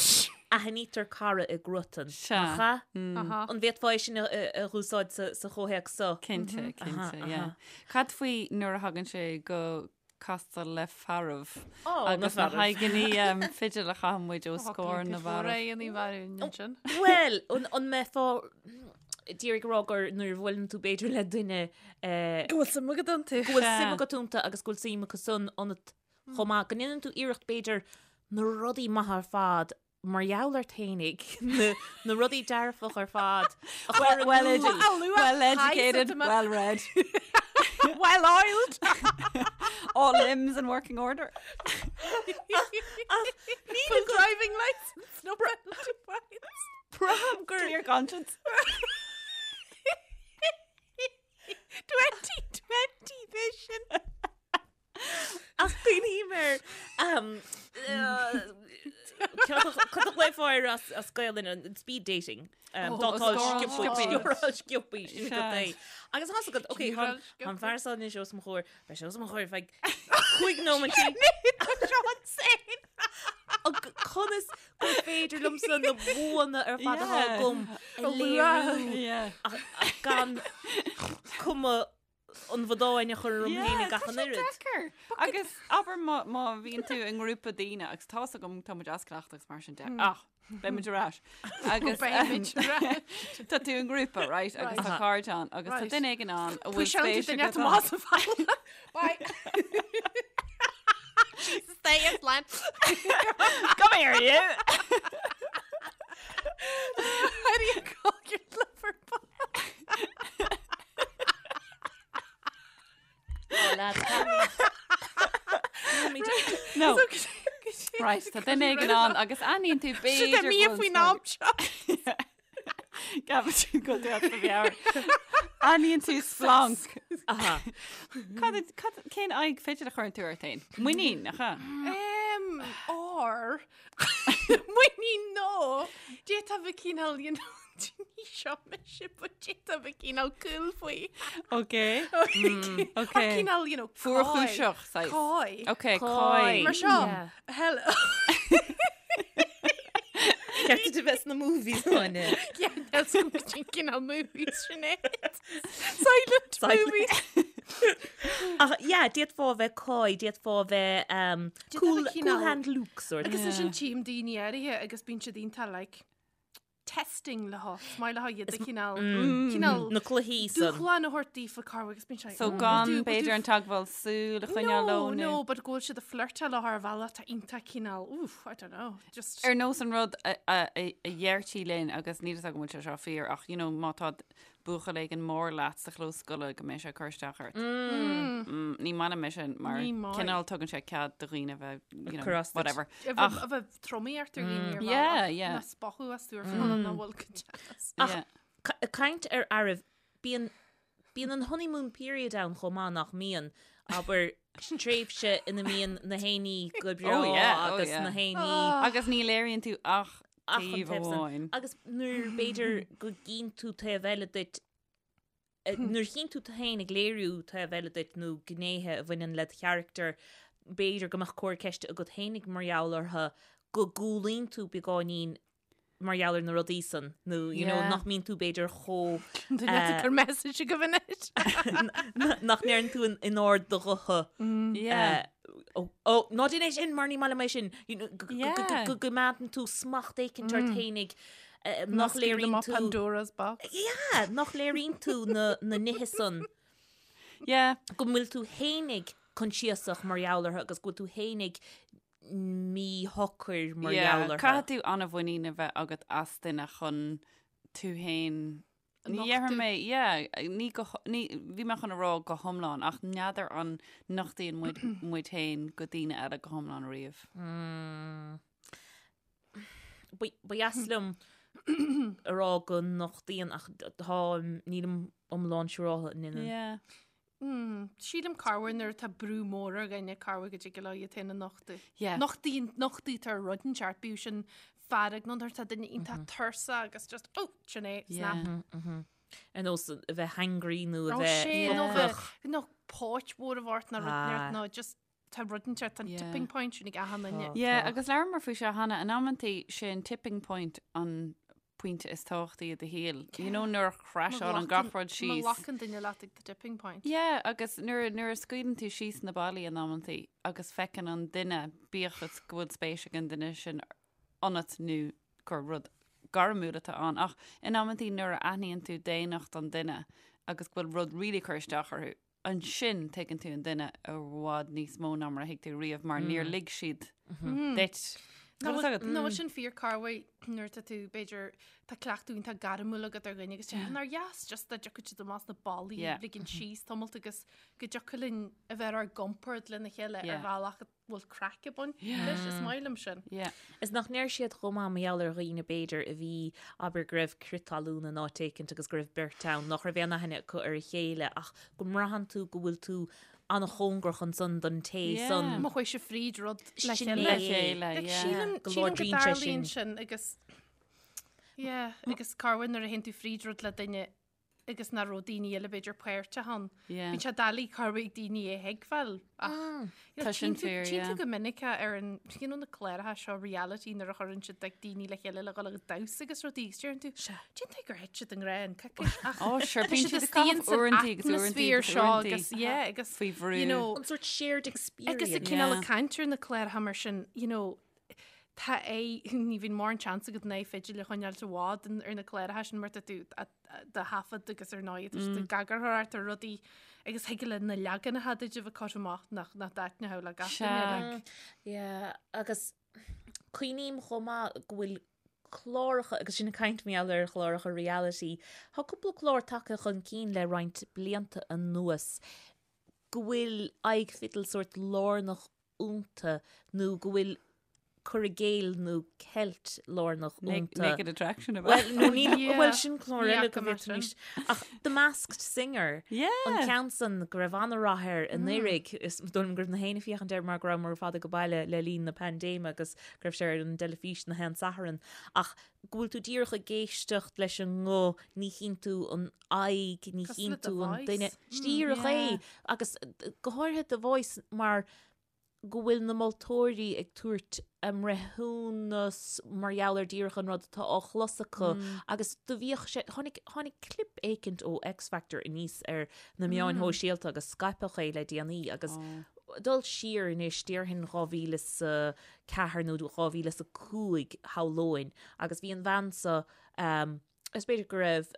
aithnítear cara i gcruatan. Sea. Nach ea? Aha. An bhféadfá é sin a a dh'úsáid sa sa chomhthéacs seo? Cinnte, cinnte, aha. yeah. Cad faoi nuair a thagann sé go castáil le fearaibh Ó, na agus na fearaibh. haghaidheanna fidil a chaitheann muid os comhair na bhfearaibh. Ré an bharún ansin. Bhuel, an an mbeifeá d'iarraidh a rá gur nuair a bhuaileann tú b'fhéidir le duine eh, Go bhfuil suim agat iontu. go bhfuil Sea. suim agat iontu agus go bhfuil suim acu san ionat chomh maith, go ndéanann tú iarracht b'fhéidir na rudaí maithe ar fad mar gheall ort fhéinig, na na rudaí dearfach ar fad a chur in Well, iúl. edu well educated, well read, Well oiled. all limbs in working order. Full driving license, no penalty points. Braithim gur Clear conscience. 2020 vision. Ach cuimhním ar cad a ghlaofá air as Gaelainn an speed dating. Dátáil sciobtha sciobtha sin go dté. Agus tá a fhios agat, ok, tá an fear seo anois os mo chomhair, beidh sé os mo chomhair feadh 5 nóiméad. Conas gur féidir liomsa na buanna ar fad atá agam a léiriú ach gan cuma an bhodáin a chur orm féin ag gach an oiread. Deacair. Agus abair má má bhíonn tú i ngrúpa daoine agus tá a fhios agam tá muid as cleachtadh agus mar sin de ach beidh muid ar ais. Agus Beidh muid ar ais. Tá tú i ngrúpa, right? Agus tá cairde ann agus tá Right. duine éigin ann a bhfuil Puiseálann tú spéis duine agat amach ann. as an bhfalla. Bye. Jesus, stay in line. Come here, you! How do you call your lover boy? No. Right, tá duine éigin ann agus aithníonn tú b'fhéidir mí go bhfuil faoin am seo. Gabh sin go dtí do mheabhair. Aithníonn tú splanc. Aha. Cad cad cén aghaidh fidil a chuireann tú ort féin? Muinín, nach ea? Um, or muinín nó d'fhéadfá bheith cineál you know, ní seo mise but d'fhéadfá bheith cineál cool faoi. Ok. Ok. Or cineál you know, Fuarchúiseach, saghas. Coy. Ok, coy. Mar seo. Hello. Ceart a bheith sna movies Áine. Yeah, that's cineál movies sin é. Silent movies. Ach yeah, d'fhéadfá a bheith coy, d'fhéadfá a bheith um, cool, bheith cool cineál- hand Luke sort. Agus ansin tchím daoine áirithe agus bíonn siad iontach like testing leo, is maith leo iad a chineál cineál Na cluichí san. dúshlán a thabhairt daofa corruair agus bíonn sé So "Mm, gan will do- will b'fhéidir do an teagmháil súl a choinneáil No, leo nó- no, but go bhfuil siad ag flirteáil leo ar bhealach atá iontach cineál, oof, I don't know, just Ar nós an rud a a- a a dheirtí linn agus níl a fhios agam an bhfuil sé seo fíor ach you know má tá buachaill éigin mór leat sa chlós scoile go mbeidh sé ag cur isteach ort. Mm, Ní maith liom é sin mar Ní maith. cineál tugann sé cead do dhaoine a bheith, you know, Cur as duit. whatever. A Ach- bheith a bheith tromaí ort ar dhaoine ar Yeah, bhealach, yeah. ná spochadh astu ar fad nach bhfuil go deas. Ach Yeah. ca- caint ar fhearaibh, bíonn bíonn an honeymoon period ann chomh maith nach mbíonn, abair tréimhse ina mbíonn na héinní go breá Oh, yeah, oh, agus yeah. na héinní Agus ní léiríonn tú ach Ach an taobh taobh san. amháin. Agus nuair b'fhéidir go gcíonn tú taobh eile duit, eh, nuair a chíonn tú tú féin ag léiriú taobh eile duit nó gnéithe a bhaineann led charachtar, b'fhéidir go mbeadh comhartha ceiste agat féinig mar gheall orthu, go gcúlaíonn tú beagáinín mar gheall ar na rudaí san, nó you know, Yeah. nach mbíonn tú b'fhéidir chomh Duine eh, gur message agaibh anois. nach ndeireann tú in- in ard do ghutha. Yeah. Eh, Ó, ó, ná déan é sin mar ní maith liom é sin. You know, go- go- Yeah. go- Go gcoimeádann tú smacht éicint ort féinig eh, nach léiríonn tú Pandora's box. Yeah, nach léiríonn tú na, na nithe san Yeah. go bhfuil tú féinig coinsiasach mar gheall orthu agus go bhfuil tú féinig míshocair mar Yeah, gheall orthu. Caithfidh tú an-mhuinín a bheith agat as duine chun tú féin Ní Nochtadh. dhéarfaidh mé, yeah, ní go, ní, bhí mé chun a rá go hiomlán, ach n'fheadar an nochtaíonn muid muid féin go daoine eile go hiomlán riamh. Ba ba dheas liom a rá go nochtaíonn ach tá nílim iomlán siúráilte an ndéanann. Yeah. Mm, sílim corruair nuair atá brú mór ar dhuine corruair go dtig leo iad féin a nochtadh. Yeah. Nochtaíonn nochtaítear rud inteacht bíodh sin fearg nó nuair atá duine iontach tuirseach agus just oh, sin é, snap. Yeah. Ar nós a bheith hangry nó a Ó bheith sé nó ocrach. bheith nó póit mhór a bheith ort nó rud Ah. inteacht nó just tá rud inteacht an Yeah. tipping point sin ag achan duine. Yeah, agus labhramar faoi seo cheana, in amantaí sé an tipping point an pointe is tábhachtaí i do shaol. You know nuair a chrashálann gach rud Má síos. ghlacann duine leat ag the tipping point. Yeah, agus nuair nuair a scaoileann tú síos na ballaí in amantaí agus feiceann an duine bíodh is go bhfuil spéis ag an duine sin ionat nó gur rud gairmiúil atá ann ach in amantaí nuair a aithníonn tú daonnacht an duine agus go bhfuil rud really cur isteach orthu, ansin tuigeann tú an duine i bhfad níos mó ná mar a thuig tú riamh mar níor lig siad duit. Nó Tá fhios agat? bhfuil sin fíor corruair nuair atá tú b'fhéidir tá cleachtadh iontach gairmiúil agat ar dhuine agus mm. nár dheas just dá dtiocfadh siad amach na ballaí Yeah. ligean síos tamalt agus go dtiocfadh linn a bheith ar ár gcompord lena chéile ar Yeah. bhealach. bhfuil craic ag baint leis, is maith liom sin. Yeah. Is nach ndeir siad chomh maith mar gheall ar dhaoine b'fhéidir a bhí, abair go raibh crith talún in áit éicint agus go raibh beirt ann nach raibh aon aithne acu ar a chéile ach go mbraitheann tú go bhfuil tú an-chóngarach ansan don té Yeah. san. Má chuaigh sibh fríd rud le Sin chéile. Le chéile, Like, yeah. sílim Go sílim go láidríonn sé dtarlaíonn sin. sin agus yeah, agus corruair nuair a théann tú fríd rud le duine agus nach raibh daoine eile b'fhéidir páirteach ann. Yeah. Bíonn sé doiligh corruair ag daoine é a thuigbheáil ach you know, Tá sin tchíonn tú fíor, tchíonn yeah. tú go minic é ar an you know, na cláracha seo reality nuair a chuireann siad like, daoine le chéile le dhul ag damhsa agus rudaí agus deireann tú cén tuige gur thit siad i ngrá in coicís ach Ó, sure, tá bíonn siad siad ag istigh caitheamh ins an uaireantaí agus uaireantaí atmaisféar agus seo uaireantaí. agus yeah agus Faoi bhrú. you know An sort shared experience. Agus a cineál Yeah. ag caint ar na cláracha mar sin, you know, tá é, ní bhíonn mórán seans agat an aghaidh fidil a choinneáilt i bhfad ar na cláracha sin mar tá tú á dtaifead agus ar ndóigh tá siad ag eagarthóireacht ar rudaí agus thig le na leaganacha duit a bheith curtha amach nach nach dtaitneodh le gach duine Sea. like. Yeah, agus cuimhním chomh maith go bhfuil cláracha, agus sin ag caint mar gheall ar chláracha reality, tá cúpla clár tagtha chun cinn le roinnt blianta anuas go bhfuil aghaidh fidil sórt lárnach iontu nó go bhfuil cur i gcéill nó ceilt lárnach iontu. Naked Attraction ab ea? Bhuel, nó níl, Yeah. bhuel sin clár Ní eile fhaca go mé bhféadfaimis. Ach The Masked Singer, Yeah. an ceann san go raibh an-rath air anuraidh, is dóigh liom go raibh na héinne ag féachaint air mar go rabhamar ar fad ag baile le linn na paindéime agus go raibh sé ar an dteilifís na haon Satharn. Ach go bhfuil tú díreach ag éisteacht leis an nguth, ní chíonn tú an aghaidh, ní Cosúil chíonn le The tú an Voice. duine. Díreach Yeah. é. Agus go háirithe The Voice mar go bhfuil na moltóirí ag tabhairt a mbreithiúnas mar gheall ar díreach an rud atá á chlos acu agus do bhíodh sé, tháinig, tháinig clip éicint ó X Factor aníos ar na meáin shóisialta agus scaipeadh é le déanaí agus dul siar anois déarfainn 2004 nó 2005 shamhlóinn agus bhí an bhean so Is b'fhéidir go raibh,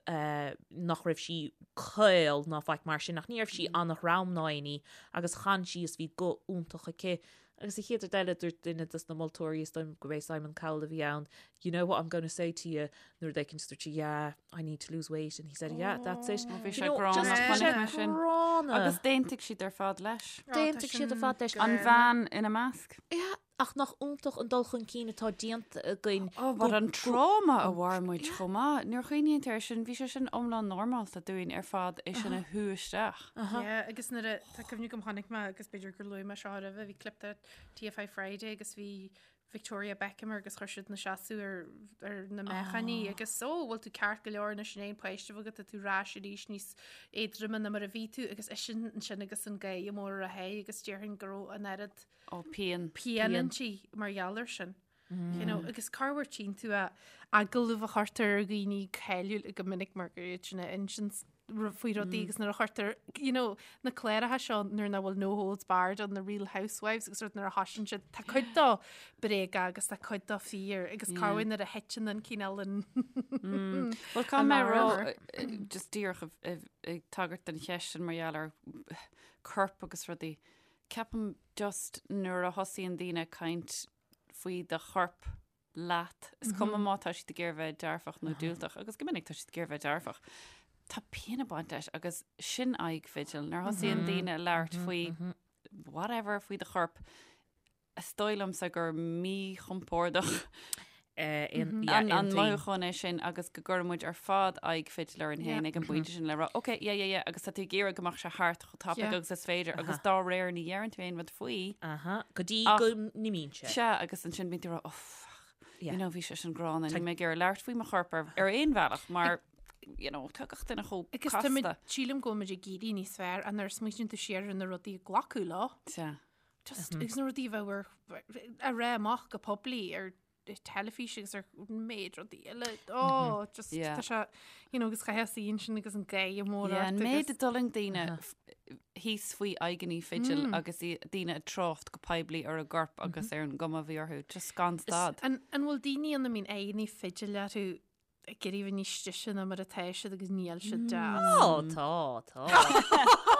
nach raibh sí caol ná faic mar sin ach ní raibh sí an-throm ná aon ní agus chan sí is bhí guth iontach aici. Agus an chéad rud eile dúirt duine dos na moltóirí, is dóigh liom gurb é Simon Cowell a bhí ann, you know what I'm going to say to you nuair rud éicint dúirt sí yeah, I need to lose weight and he said yeah, that's it. Bhí You sé know, gránna, just chonaic bhí sé mé sin. gránna. Agus d'aontaigh siad ar fad leis. D'aontaigh siad ar fad leis. An bhean ina measc. Yeah. Ach nach iontach an dul chun cinn atá déanta againn. Ó, but an tráma a mhair muid chomh maith. Nuair a chuimhníonn tú air sin, bhí sé sin iomlán normálta dúinn ar fad é sin a shú isteach. Yeah, agus nuair a, tá cuimhne agam chonaic mé agus b'fhéidir gur luaigh mé seo roimhe, bhí clip de TFI Friday agus bhí Victoria Beckham air agus chuir siad ina seasamh ar, ar na meáchain í agus ó, bhfuil tú ceart go leor anois an aon páiste agat, tá tú ar ais arís níos éadroime ná mar a bhí tú agus eisean ansin agus an gáire mór ar a haghaidh agus déarfainn go raibh an oiread Ó, pian. Pian inti mar gheall air sin. You know, agus corruair tchíonn tú a agallamh a chuirtear ar dhaoine cáiliúil go minic mar gur iad sin a insíonn faoi rudaí agus nuair a chuirtear, you know, na cláracha seo nuair nach bhfuil no holds barred on the Real Housewives agus rud nuair a thosaíonn siad, tá cuid dó bréaga agus tá cuid dó fíor agus corruair nuair a thiteann an cineál an Bhuel, caithfidh mé a rá, just díreach ag tagairt don cheist sin mar gheall ar corp agus rudaí, Ceapaim just nuair a thosaíonn daoine ag caint faoi do chorp leat, is cuma má tá siad ag iarraidh bheith dearfach nó diúltach, agus go minic tá siad ag iarraidh bheith dearfach, tá pian ag baint leis agus sin aghaidh fidil. Nuair a thosaíonn daoine ag labhairt faoi whatever faoi do chorp, is dóigh liomsa gur míchompordach an mothúchán é sin agus go gcuireann muid ar fad aghaidh fidil orainn féin ag an bpointe sin le rá, ok, yeah, yeah, yeah, agus tá tú ag iarraidh go mbeadh sé thart chomh tapaidh agus is féidir agus dá réir ní dheireann tú aon rud faoi. Go dtí go n-imíonn sé. Sea, agus ansin bíonn tú ag rá, oh, fuck, you know, bhí sé sin gránna, níl mé ag iarraidh labhairt faoi mo chorp ar aon bhealach mar, you know, tá gach duine chomh Agus tá muid, casta. sílim go bhfuil muid ag éirí níos fearr nuair a smaoiníonn tú siar ar na rudaí a glacadh leo. Sea. Just, agus na rudaí a bheith ar, a rá amach go poiblí ar teilifís agus ar méid rudaí eile. Oh, just, Yeah. tá sé, you know, agus chaithfeá suí ansin agus an gáire mór Yeah, ort an méid agus- a d'fhulaing daoine f- thíos faoi aghaidheanna fidil agus i- daoine ag trácht go poiblí ar a gcorp agus ar an gcuma a bhí orthu, just gan stad. An, an bhfuil daoine ann a mbíonn aghaidheanna fidil orthu ag iarraidh bheith níos deise ná mar atá siad agus níl siad deas. Ó, tá, tá.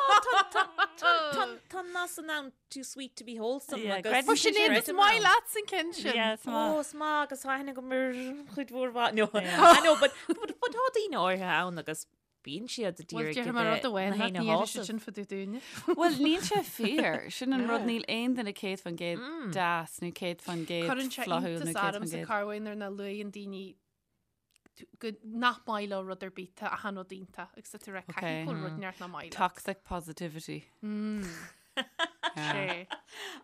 Tá an nath san ann too sweet to be wholesome Yeah, agus... creideann Ó, Sinéad, is maith leat an ceann sin. Yeah, is Ó, maith. is maith agus tá aithne agam ar chuid mhór mhaith. No, I know, but, but, but tá daoine áirithe ann agus. Bíonn siad Bhuel, d'iarraidh déarfaidh mé rud amháin na leat, héinne ní dhéanfaidh siad shásamh. sin fá dtaobh dúinne. Bhuel, níl sé fíor. Sin an rud, níl aon duine 100% deas nó 100% Cuireann sé flaithiúil nó iontas ormsa 100%. corruair nuair nach luaigheann daoine go nach maith leo rud ar bith, tá achan rud iontach agus tá tú ag rá caithfidh go bhfuil rud inteacht nach maith leat. Toxic positivity. Sé.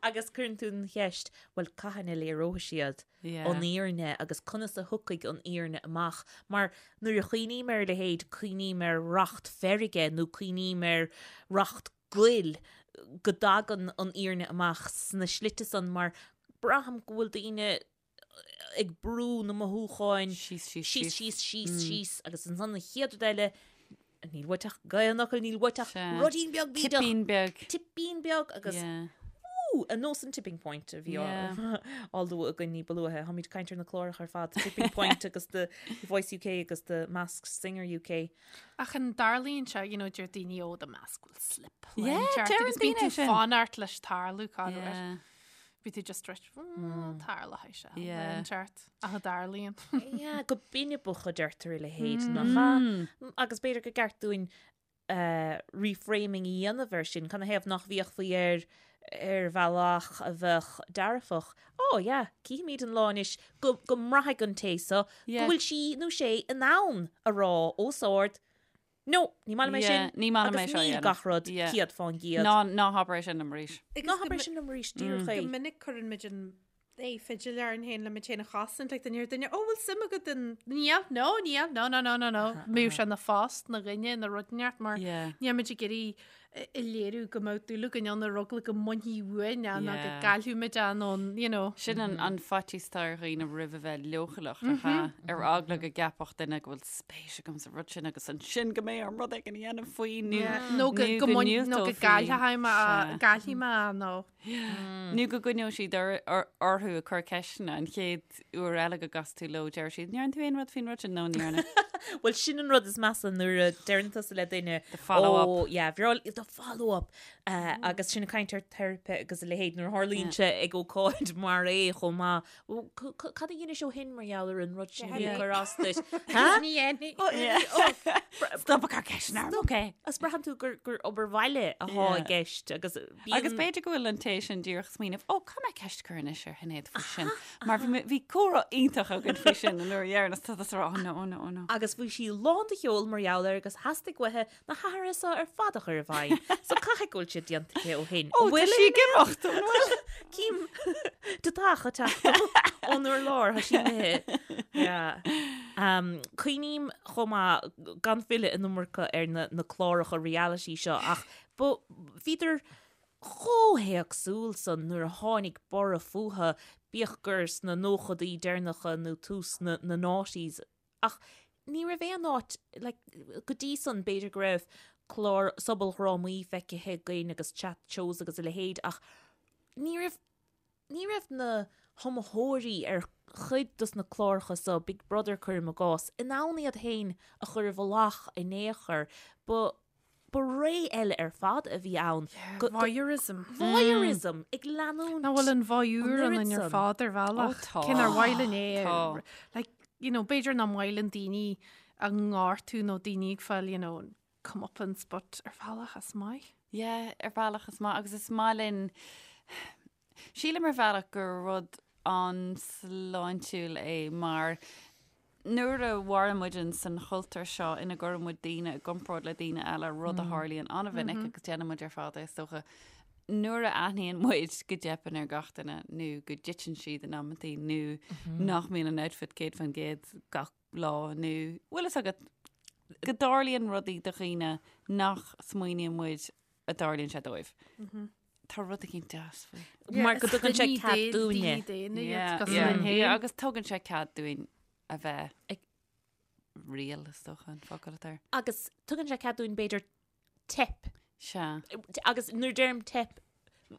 Agus cuireann tú an cheist, bhuel, cathain a léireoidh siad an fhírinne agus conas a thiocfaidh an fhírinne amach? Mar nuair a chuimhním ar a leithéid, cuimhním ar racht feirge nó cuimhním ar racht goil, go dtagann an fhírinne amach sna slite san mar braithim go bhfuil daoine ag brú na mothúcháin Síos, síos, síos, síos. síos, síos, síos agus ansan an chéad rud eile, níl uait ach an fhocal, níl uait ach Sea. ruidín beag bídeach, Tipín beag. tipín beag agus Yeah. ú, ar nós an tipping point a bhí á Yeah. á lua againn ní ba luaithe. Táimid ag caint ar na cláracha ar fad, Tipping Point agus The Voice UK agus The Masked Singer UK. Ach an dtarlaíonn sé, you know, deir daoine ó the mask will slip. Yeah, Ceart, deireann agus bíonn daoine tú sin. fanacht leis tarlú corruair. Yeah. Bhí tú just reit tarlóidh sé Yeah. an ceart ach a dtarlaíonn. Yeah, go binibeach a deirtear a leithéid nach ea? Agus b'fhéidir gur ceart dúinn eh, reframing a dhéanamh air sin, canathaobh nach bhféachfaí air ar bhealach a bheadh dearfach. Ó, yeah, cífimid an lá anois go, go mbraithfidh an té so go Yeah. bhfuil sí nó sé in ann a rá os ard, No, ní maith liom é Yeah, sin. ní maith liom é Agus seo a níl dhéanamh. gach rud Yeah. 100%. Ná ná habair é sin liom arís. Ná habair é sin liom arís, díreach é. Go minic cuireann muid an é fidil orainn féin le muid féin a chosaint like duine ar duine ó bhfuil suim agat in níl no níl no no no no no mbeadh sé ina phost ina dhuine ina rud inteacht mar Yeah. níl muid ag iarraidh a léiriú go mbeadh dúil againn ann ar eagla go mbainfí uainn é nó go Yeah. gcaillfidh muid é nó you know. Sin an an faitíos atá ar dhaoine roimh a bheith leochaileach, nach ea? Ar eagla go gceapfadh duine go bhfuil spéis agam sa rud sin agus ansin go mbeidh orm rud éigin a dhéanamh faoi nó Nó go nó go go mbain- nó go ndiúltófaí. gcaillfidh mé Sea. gcaillfidh mé nó. Nó go gcoinneoidh siad or- or- orthu ag cur ceisteanna an chéad uair eile go gcasfaidh tú leo deir siad, "Ndearna tú aon rud faoin rud sin?" No, ní dhearna. Bhuel, sin an rud is measa nuair a deireann tusa le duine The follow-up. "Ó, yeah, bhreá the follow-up. Uh, agus sin ag caint ar teiripe agus a leithéid nuair a tharlaíonn sé ag ócáid mar é chomh maith. Bhuel, c- c- Cad a dhéanais ó shin mar gheall ar an rud sin a bhí ag cur as duit? Ha? Ní dhéanfaidh. Ó, ó, Stop ag cur ceisteanna orm, okay. Agus braitheann tú gur, gur obair bhaile atá i Yeah. gceist agus bíonn... Agus b'fhéidir go bhfuil an té sin díreach ag smaoineamh, ó, caithfidh mé ceist a chur anois ar Shinéad faoi sin, mar bhí bhí comhrá iontach againn faoi sin an uair dheireanach, tá tusa ag rá, oh no, oh no, oh no. Agus bhí sí lán de cheol mar gheall air agus theastaigh uaithi na hathruithe seo ar fad a chur i bhfeidhm. So caithfidh go bhfuil siad déanta aici ó shin. Ó, tá sí ag imeacht, an bhfuil? Cím deatach ag teacht ón urlár, tá sí imithe. Yeah. Um, Cuimhním chomh maith gan filleadh an iomarca ar na, na cláracha reality seo ach ba bhíodar chomh héagsúil san nuair a tháinig borradh fúthu, bíodh gur sna nóchadaí deireanacha nó tús na, na noughties Ach ní raibh aon áit, like, go dtí san b'fhéidir go raibh clár sobaldhrámaí feicthe againn agus chat shows agus a leithéid ach ní raibh, ní raibh na hiomaitheoirí ar chuid dos na cláracha so, Big Brother cuirim i gcás, in ann iad féin a chur i bhfolach in aon chor. Ba, ba ré eile ar fad a bhí ann. Yeah, voyeurism. Voyeurism ag leanúint. Nach bhfuil an voyeur An ionainn oiread ar san. fad ar bhealach. Ó, tá. Cé nár mhaith linn é. Tá. Like, you know, b'fhéidir nach maith linn daoine a ngortú nó daoine ag fáil, you know, comeuppance, but ar bhealach is maith. Yeah, ar bhealach is maith agus is maith linn Sílim ar bhealach gur rud an-sláintiúil é mar nuair a mhaireann muid in san chultúr seo ina gcuireann muid daoine i gcomparáid le daoine eile, rud a tharlaíonn an-mhinic agus déanann muid ar fad é is dócha, nuair a aithníonn muid go dteipeann ar gach duine nó go dtiteann siad in amantaí nó nach mbíonn an outfit 100% gach lá nó bhfuil fhios agat go dtarlaíonn rudaí do dhaoine nach smaoiníonn muid a dtarlaíonn sé dóibh. Tá rud éigin deas faoi. Mar go dtugann sé cead dúinne. Yeah, agus tugann sé cead dúinn a bheith ag real is dócha an focal atá air. Agus tugann sé cead dúinn b'fhéidir teip. Sea. Agus nuair a deirim teip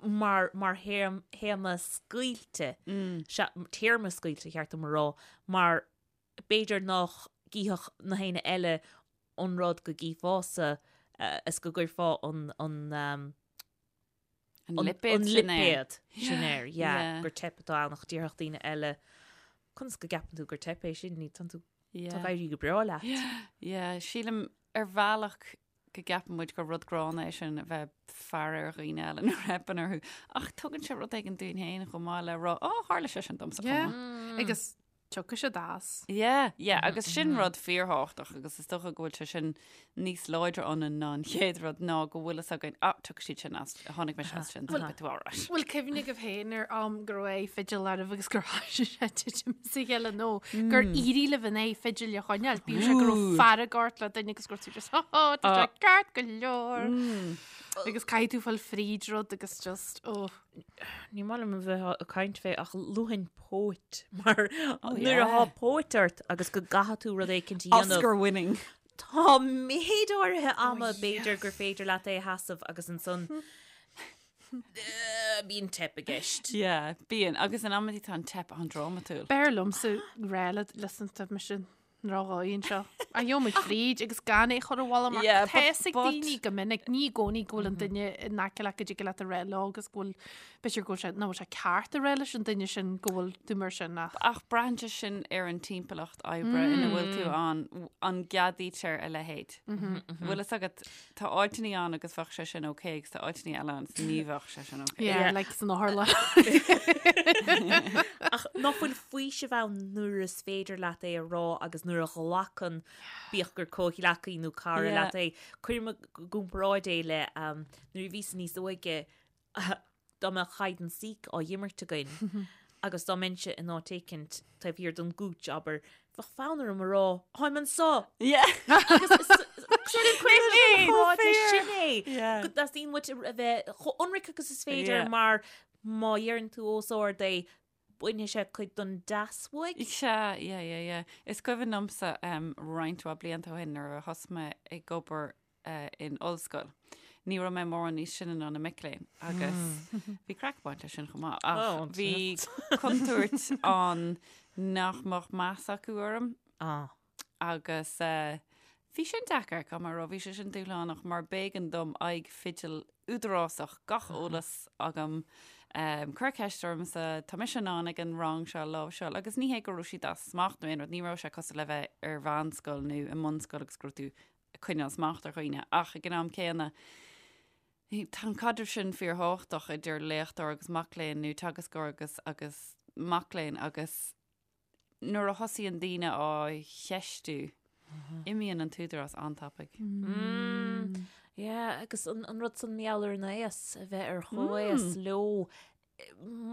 mar mar théama scaoilte, sea, téarma scaoilte cheart dom a rá, mar b'fhéidir nach gcífeadh na héinne eile an rud go gcífeása is go gcuirfeá an an An lipéad sin air. lipéad sin air, yeah, gur teip atá ann ach déarfadh daoine eile, conas go gceapann tú gur teip é sin, ní tá tú. Tá ag éirí go breá leat. Yeah, sílim ar bhealach go gceapann muid gur rud gránna é sin a bheith faire ar dhaoine eile nuair a theipeann orthu. Ach tugann sé rud éigin dúinn féin chomh maith le rá, ó, tharla sé sin domsa chomh Yeah. maith. Agus tiocfaidh siad as. Yeah, yeah, agus sin rud fíorthábhachtach agus is dócha go bhfuil sé sin níos láidre ionainn ná an chéad rud ná go bhfuil fhios againn, ah, tiocfaidh siad sin as, tháinig mise as sin, so beidh tú alright. Bhfuil cuimhne agaibh féin ar am go raibh aghaidh fidil oraibh agus gur thoisigh sé titim as a chéile nó gur éirigh libh an aghaidh fidil a choinneáil? Bíodh sé go raibh fearg ort le duine agus go raibh tú just, oh, oh, tá sé ceart go leor. Agus caithfidh tú fáil fríd rud agus just, oh. Ní maith liom a bheith ag caint fé ach luafainn póit mar nuair atá póit ort agus go gcaithfidh tú rud éicint a dhéanamh. Oscar winning. Tá méid áirithe ama b'fhéidir gur féidir leat é a sheasamh agus ansan bíonn teip i gceist. Yeah, bíonn. Agus in amantaí tá an teip an-drámatúil. B'fhearr liomsa rá leat listen tá mise ndrochdhóigh anseo. A gheobhaidh muid fríd agus gan é a chur abhaile mar Yeah, tá but- fhios ag but- daoine go minic, ní i gcónaí go bhfuil an duine in aice leat go dtig leat a rá leo agus go bhfuil, b'fhéidir go bhfuil sé, nach bhfuil sé ceart a rá leis an duine sin go bhfuil tú mar sin ach. Ach braitheann sé sin ar an timpeallacht oibre ina bhfuil tú ann, an gceadaítear a leithéid. Bhfuil fhios agat, tá áiteanna ann agus bheadh sé sin ok agus tá áiteanna eile ann agus ní bheadh sé sin ok. Yeah, like san otharlann. Ach nach bhfuil faoiseamh ann nuair is féidir leat é a rá agus nuair a ghlacann, bíodh gur comhghleacaí nó cara Yeah. leat é. Cuirim i gcomparáid é le um, nuair a bhíos níos óige dá mbeadh hide and seek á imirt againn agus dá mbeinnse in áit éicint taobh thiar den gcúits, abair, bheadh fonn orm a rá, Táim anseo! Yeah. Agus cuirim leis sin é. Yeah. Go dteastaíonn uait a bheith chomh ionraic agus is féidir Yeah. mar má dheireann tú os ard é, bainfidh sé cuid den deas uaidh. Sea, yeah, yeah, yeah. Is cuimhin liomsa um, roinnt mhaith blianta ó shin nuair a thosaigh mé ag obair in ollscoil. Ní raibh mé mórán níos sine ná na mic léinn agus bhí craic ag baint leis sin chomh maith ach bhí contúirt ann nach mbeadh meas acu orm agus bhí sin deacair, caithfidh mé a rá, bhí sé sin dúshlánach mar b'éigean dom aghaidh fidil údarásach, gach eolas agam, cuir ceist ormsa, tá mise in ann ag an rang seo a láimhseáil agus ní hé go raibh siad as smacht nó aon rud, ní raibh sé cosúil le bheith ar mheánscoil nó i mbunscoil agus go raibh tú ag coinneáil smacht ar dhaoine ach ag an am céanna tá an caidreamh sin fíorthábhachtach idir léachtóir agus mac léinn nó teagascóir agus agus mac léinn agus nuair a thosaíonn daoine á cheistiú imíonn an t-údarás an-tapaidh. Mm. Yeah, agus an, an rud san mar gheall ar an aos a bheith ar chomhaos mm. leo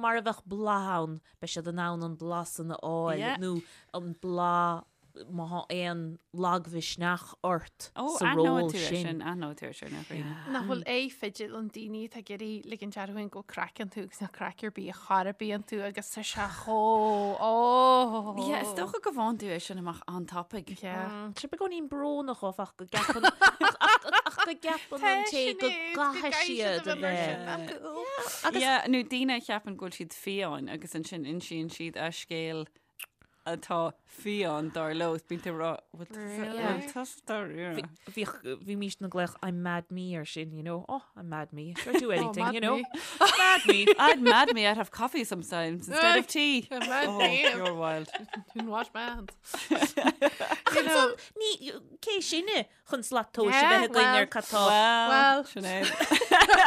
mar a bheadh bláth ann, beidh siad in ann an bláth san a fháil Yeah. nó an bláth má thá aon lagmhisneach ort Ó, sa aithneoidh ról tú é sin. sin, aithneoidh tú é sin, a Ghrianna. Nach bhfuil aghaidh fidil an daoine atá ag iarraidh ligint orthu féin go bhfuil craic iontu agus nach craic ar bith a chor ar bith iontu agus tá sé chomh ó. Yeah, is dócha go bhfaigheann tú é sin amach an-tapaidh. Yeah. Tá sé beagáinín brónach áfach go gceapann ach ach go gceapann an té go gcaithfidh siad a bheith. Agus yeah, nó daoine a cheapann go bhfuil siad fiáin agus ansin insíonn siad a scéal atá fiáin dar leo. Bíonn tú ag rá, bhfuil tusa- Really? bhfuil tusa dáiríre? Bhíodh bhímís ag glaoch I'm mad me ar sin, you know. Oh, I'm mad me. Sure do anything, mad you know. me. Mad me. I'd mad me, I'd have coffee sometimes instead of tea. I'm mad Oh, me. you're wild. Didn't wash my hands. Ach You know. ansan, ní cé sinne chun slat tomhais a Yeah, bheith againn well, ar cad tá. Well, Well. Sinéad.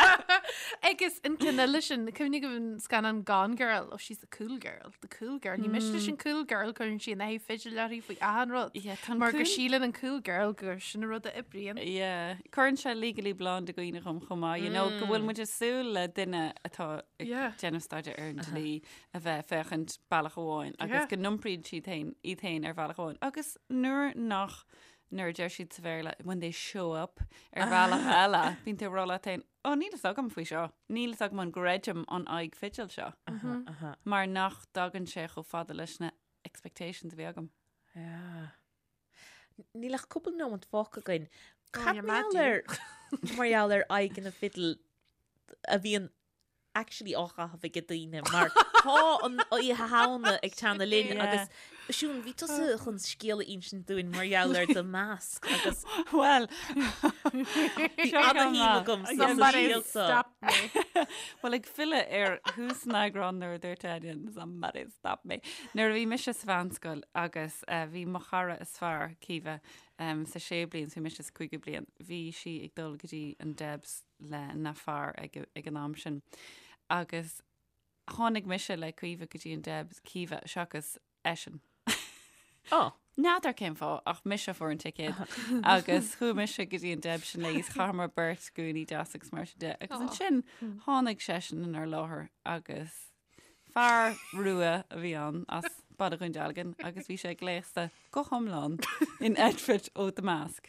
Agus an ceann eile sin, cuimhnigh an scannán Gone Girl, oh she's the cool girl, the cool girl. Ní miste leis an cool girl cuireann sí an aghaidh fidil uirthi faoi achan rud. Yeah, tá an Mar go cool- síleann an cool girl gur sin an rud a oibríonn. Yeah. Cuireann sé Legally Blonde i gcuimhne dhom chomh maith, you know, go bhfuil muid ag súil le duine atá ag Yeah. déanamh staidéar ar an dlí a bheith ag féachaint bealach amháin agus Yeah. go n-iompraíonn siad féin iad féin ar bhealach amháin. Agus nuair nach nuair a deir siad sa Bhéarla when they show up ar bhealach eile, bíonn tú ag rá leat féin, ó níl fhios agam faoi seo, níl fhios agam an gcreidim an aghaidh fidil seo, mar nach dtagann sé chomh fada leis na expectations a bhí agam. Yeah. Níl ach cúpla nóiméad fágtha againn. Oh, Cad you're mar mad, gheall ar mar gheall ar aghaidheanna fidil a bhíonn actually á chaitheamh ag daoine mar tá an Oíche Shamhna ag teannadh linn agus Siún, bhí tusa chun scéal a insint dúinn mar gheall ar The Mask agus Well, bhí ana-shuim agam sa Somebody scéal seo. stop me. Well, ag filleadh ar thús an eagráin nuair a dúirt Áine, somebody stop me. Nuair a bhí mise sa mheánscoil agus eh, bhí mo chara is fearr, Caoimhe, em, sa séú bliain, so bhí mise sa cúigiú bliain, bhí sí ag dul go dtí an Debs lena fear ag, ag an am sin. Agus tháinig mise le Caoimhe go dtí an Debs, Caoimhe seachas eisean. Ó. N'fheadar cén fáth ach mise a fuair an ticéad agus chuaigh mise go dtí an Debs sin léi is chaitheamar beirt gúnaí deas agus mar sin de. Agus ansin tháinig seisean inár láthair agus fear rua a bhí ann as Baile Dhún Dealgan agus bhí sé gléasta go hiomlán in outfit ó The Mask.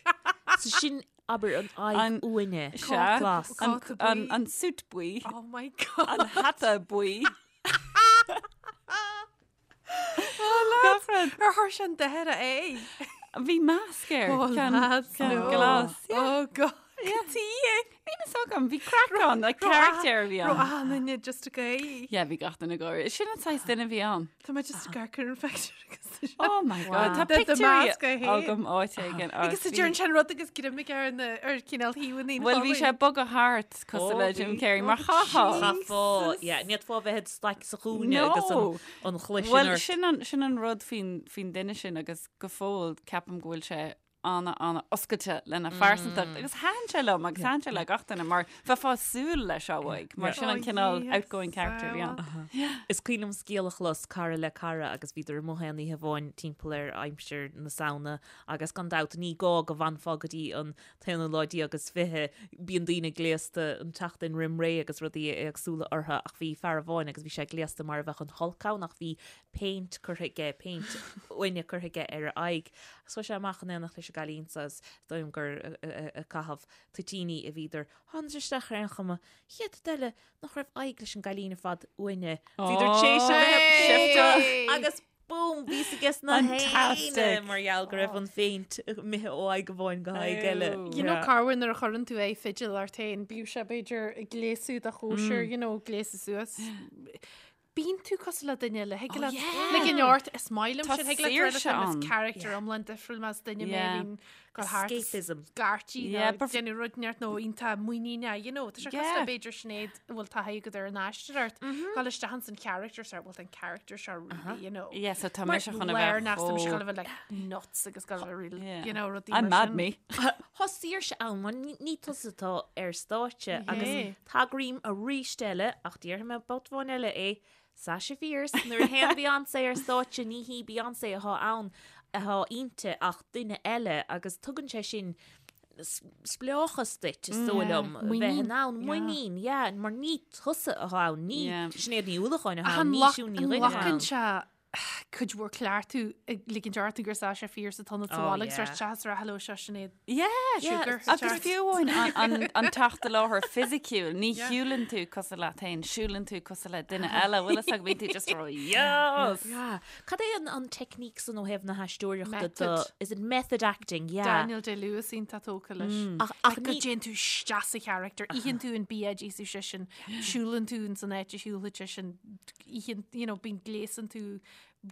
So sin abair an aghaidh An- uaine. Sea, Glas. an, Cóta an, buí. an suit buí, Oh my God. an hata buí. Gach rud. Ar chuir sé an deireadh é? Bhí masc air. Oh, Ceann- lads, ceann no. glas. Yeah. Oh God. Yeah. Níl a fhios agam, bhí craic ann, like character a bhí Raibh ann. achan duine just ag gáire. Yeah, bhí gach duine ag gáire. Sin an saghas duine a bhí ann. Tá mé just ag amharc ar an phictiúr agus tá sé- Oh my God, tá The- the pictiúirí mask é féin. agam áit éigin. Agus a deireann sé an rud agus greim aige ar na ar cineál thaobhanna an Bhuel, bhí sé cholainn. bogadh thart cosúil Oh, le Jim bhí. Carrey mar chaithfeá. Chaithfeá, yeah, ní fhéadfá bheith id staic sa chúinne No. agus an, an chluais sin Bhuel, ort. sin an, sin an rud faoin, faoin duine sin agus go fóill ceapaim go bhfuil sé ana, ana oscailte lena phearsantacht agus thaitin sé liom agus thaitin sé le gach duine mar bheifeá ag súil leis seo uaidh mar sin an Oh, cineál yes, outgoing character a bhí ann. Is cuimhin liom scéal a chlos cara le cara agus bhíodar amuigh aon oíche amháin timpeall ar aimsir na Samhna agus gan dabht ní gá go bhfanfá go dtí an t-aonú lá déag is fiche, bíonn daoine gléasta an tseachtain roim ré agus rudaí éagsúla orthu ach bhí fear amháin agus bhí sé gléasta mar a bheadh an Hulk ann ach bhí péint curtha aige, péint uaine curtha aige ar a aghaidh. Agus chuaigh sé amach in éineacht leis an gcailín so is dóigh liom gur ag caitheamh toitíní a bhíodar. Tháinig isteach ar aon chuma, chéad rud eile nach raibh aghaidh leis an gcailín ar fad uaine. Bhíodar tar éis a bheith Hey! agus boom, bhí a fhios ag na héinne Fantastic. mar gheall go raibh an phéint imithe ó aghaidh amháin go haghaidh eile. Oh. You know corruair nuair a chuireann tú aghaidh fidil ort féin, bíodh sé b'fhéidir ag gléasadh do chóisir, you know, gléasadh suas. Bíonn tú cosúil le duine eile, thig leat ligean ort, is maith liom Tá sin, thig leat saoirse rud is ann. character iomlán difriúil más duine mé Yeah. a bhíonn ag dul thart Escapism. scairtí nó Yeah, but- déanamh rud neart nó iontach muiníneach, you know, tá sé cosúil Yeah. le b'fhéidir Sinéad a bhfuil taithí agat ar an aistear ort, dul isteach ins an character seo, bhfuil an character seo really, you know. Yeah, so tá Mar mise chun a léir bheith nach tá mise chomh- chun a bheith like nuts agus go bheith real, Yeah. you know, rudaí I'm mar mad sin. me. Tá saoirse ann, mar ní ní tusa atá ar stáitse agus Yeah. tagraím arís eile ach déarfaidh mé babhta amháin eile é Sasha Fierce nuair a théann Beyoncé ar stáitse ní hí Beyoncé atá ann atá inti ach duine eile agus tugann sé sin spleáchas duit is dóigh liom a bheith in ann muinín yeah mar ní tusa atá ann ní Yeah. Sinéad Ní Uallacháin atá Ach ann an ní nglac- Siún Ní an Dhuinn atá nglacann ann. sé cuid mhór cleachtadh ag ligint ort gur Sasha Fierce atá ionat sa Oh, bhaile agus yeah. ort teas ar hello seo Sinéad Yeah, Sugar. Agus fiú amháin an, an, an teacht i láthair fisiciúil, ní shiúlann tú cosúil leat féin, siúlann tú cosúil le duine eile, bhfuil fhios agat bíonn tú just rá, yes! Yeah. Cad é an, an technique san ó thaobh na haisteoireachta do Method. is it method acting? Yeah. Daniel Day-Lewis iontach tógtha leis. Ach, ach Like, go ní dtéann tú isteach sa character, itheann tú an bia a d'íosfadh seisean, siúlann tú ins an áit a siúlfadh seisean, itheann, you know, bíonn gléasann tú,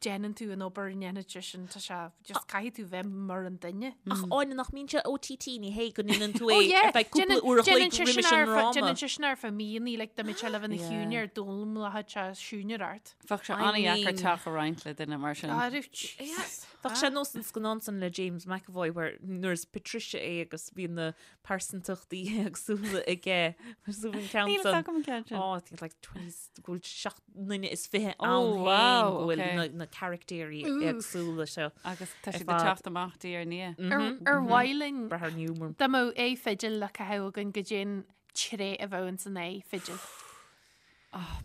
déanann tú an obair a ndéanfadh seisean, tá sé, just caithfidh tú bheith mar an duine. Ach Áine nach mbíonn sé OTT ní hé go ndéanann tú Oh é yeah, ar feadh cúpla déanann uair a chloig déanann sé roimis sin an ar feadh ndráma. déanann sé sin ar feadh míonna, like, dá mbeadh sé le bheith ina Yeah. chiúine ar d'fhoghlaimeoidh sé siúinear ort. Bheadh sé I an-dheacair mean- teach a roinnt le duine mar sin. Arú, Jesus. Bheadh sé nós an scannán san le James McAvoy where nuair is Patricia é agus bíonn na pearsantachtaí éagsúla aige. Mar sú an ceann Níl san. fhios agam an ceann sin. Oh, I think like 20 go bhfuil 7 nduine is 20 Oh, ann féin wow, go bhfuil okay. na, na caractéirí Oof. éagsúla seo. Agus tá Ar siad ag fad. teacht amach diaidh ar ndiaidh. Ar ar mhaith linn Brath ar Newman. dá mbeadh aghaidh fidil le caitheamh againn goidé an tréith a bheadh ins an aghaidh fidil.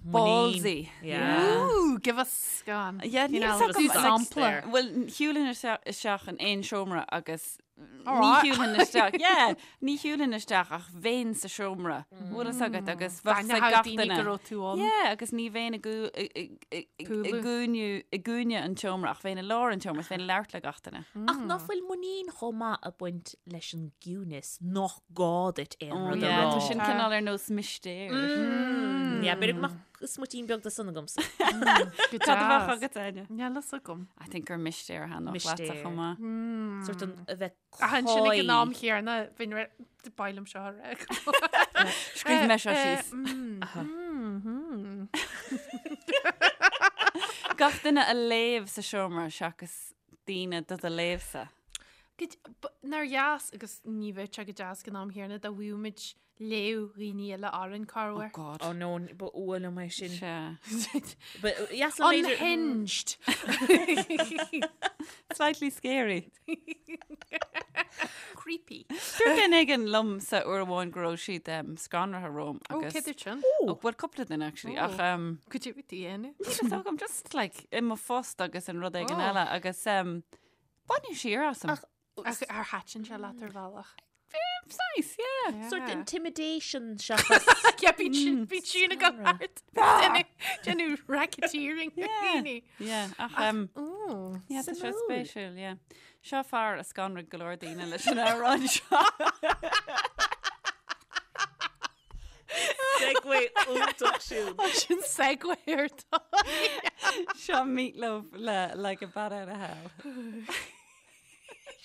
Ballsy. Yeah. Ooh, give us go on. Yeah, You níl know, fhios agam, do like, sampla. Bhuel, shiúlfainn isteach in aon seomra agus Ní shiúlfainn isteach, yeah, ní shiúlfainn isteach ach bheinn sa seomra, bhfuil fhios agat agus bheadh fhios ag gach duine. go raibh tú ann. Yeah, agus ní bheinn i gcúinne an tseomra ach bheinn i lár an tseomra, bheinn ag labhairt le gach duine. Ach ná fuil muinín chomh maith ag baint leis an gciúnas nach gá duit aon rud a rá. Tá sin cineál ar nós mistéir. Yeah, b'fhéidir go mbeadh smuitín beag de san agamsa. Cad a bheadh agat, Áine? Níl fhios agam. I think gur mistéir a thaitneodh leatsa chomh maith. Sort an a bheith Ach ansin ag an am chéanna, bheinn re ba mhaith liom seo a rá. Scríobh mé seo síos. Gach duine a léamh sa seomra seachas daoine do do léamhsa. Nár dheas agus ní bheadh sé go deas ag an am chéanna dá bhfaigheadh muid léamh dhaoine eile orainn corruair. Oh God. Oh no, ba fhuath liom é sin. Sea. Ba dheas liom b'fhéidir- Unhinged. Slightly scary. Creepy. Dúirt duine éigin liomsa uair amháin go raibh siad um, scanraithe romham Ó, agus... cé dúirt sin? Oh, well, cúpla duine actually, ach um, Cad é bhí tú a dhéanamh? níl fhios agam, just like i mo phost agus an rud éigin Oh. eile agus um, baineadh siar asam. Ach Ach ar thaitin sé leat ar bhealach? Nice, yeah. Sort intimidation seachas. Yeah, bíonn sin bíonn sin ag an art. Déanamh racketeering. Yeah. Yeah, ach um, Ooh. yeah, tá sé Suimiúil. spéisiúil, yeah. Seo fear a scanraigh go leor daoine leis an amhrán seo. Segue iontach siúd. Sin segue ar tá. Seo Meat Loaf le Like a Bat Out of Hell.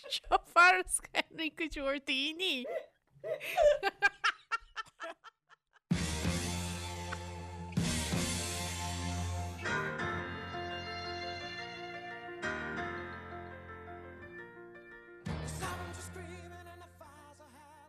Seo fear a scanraigh go leor daoine.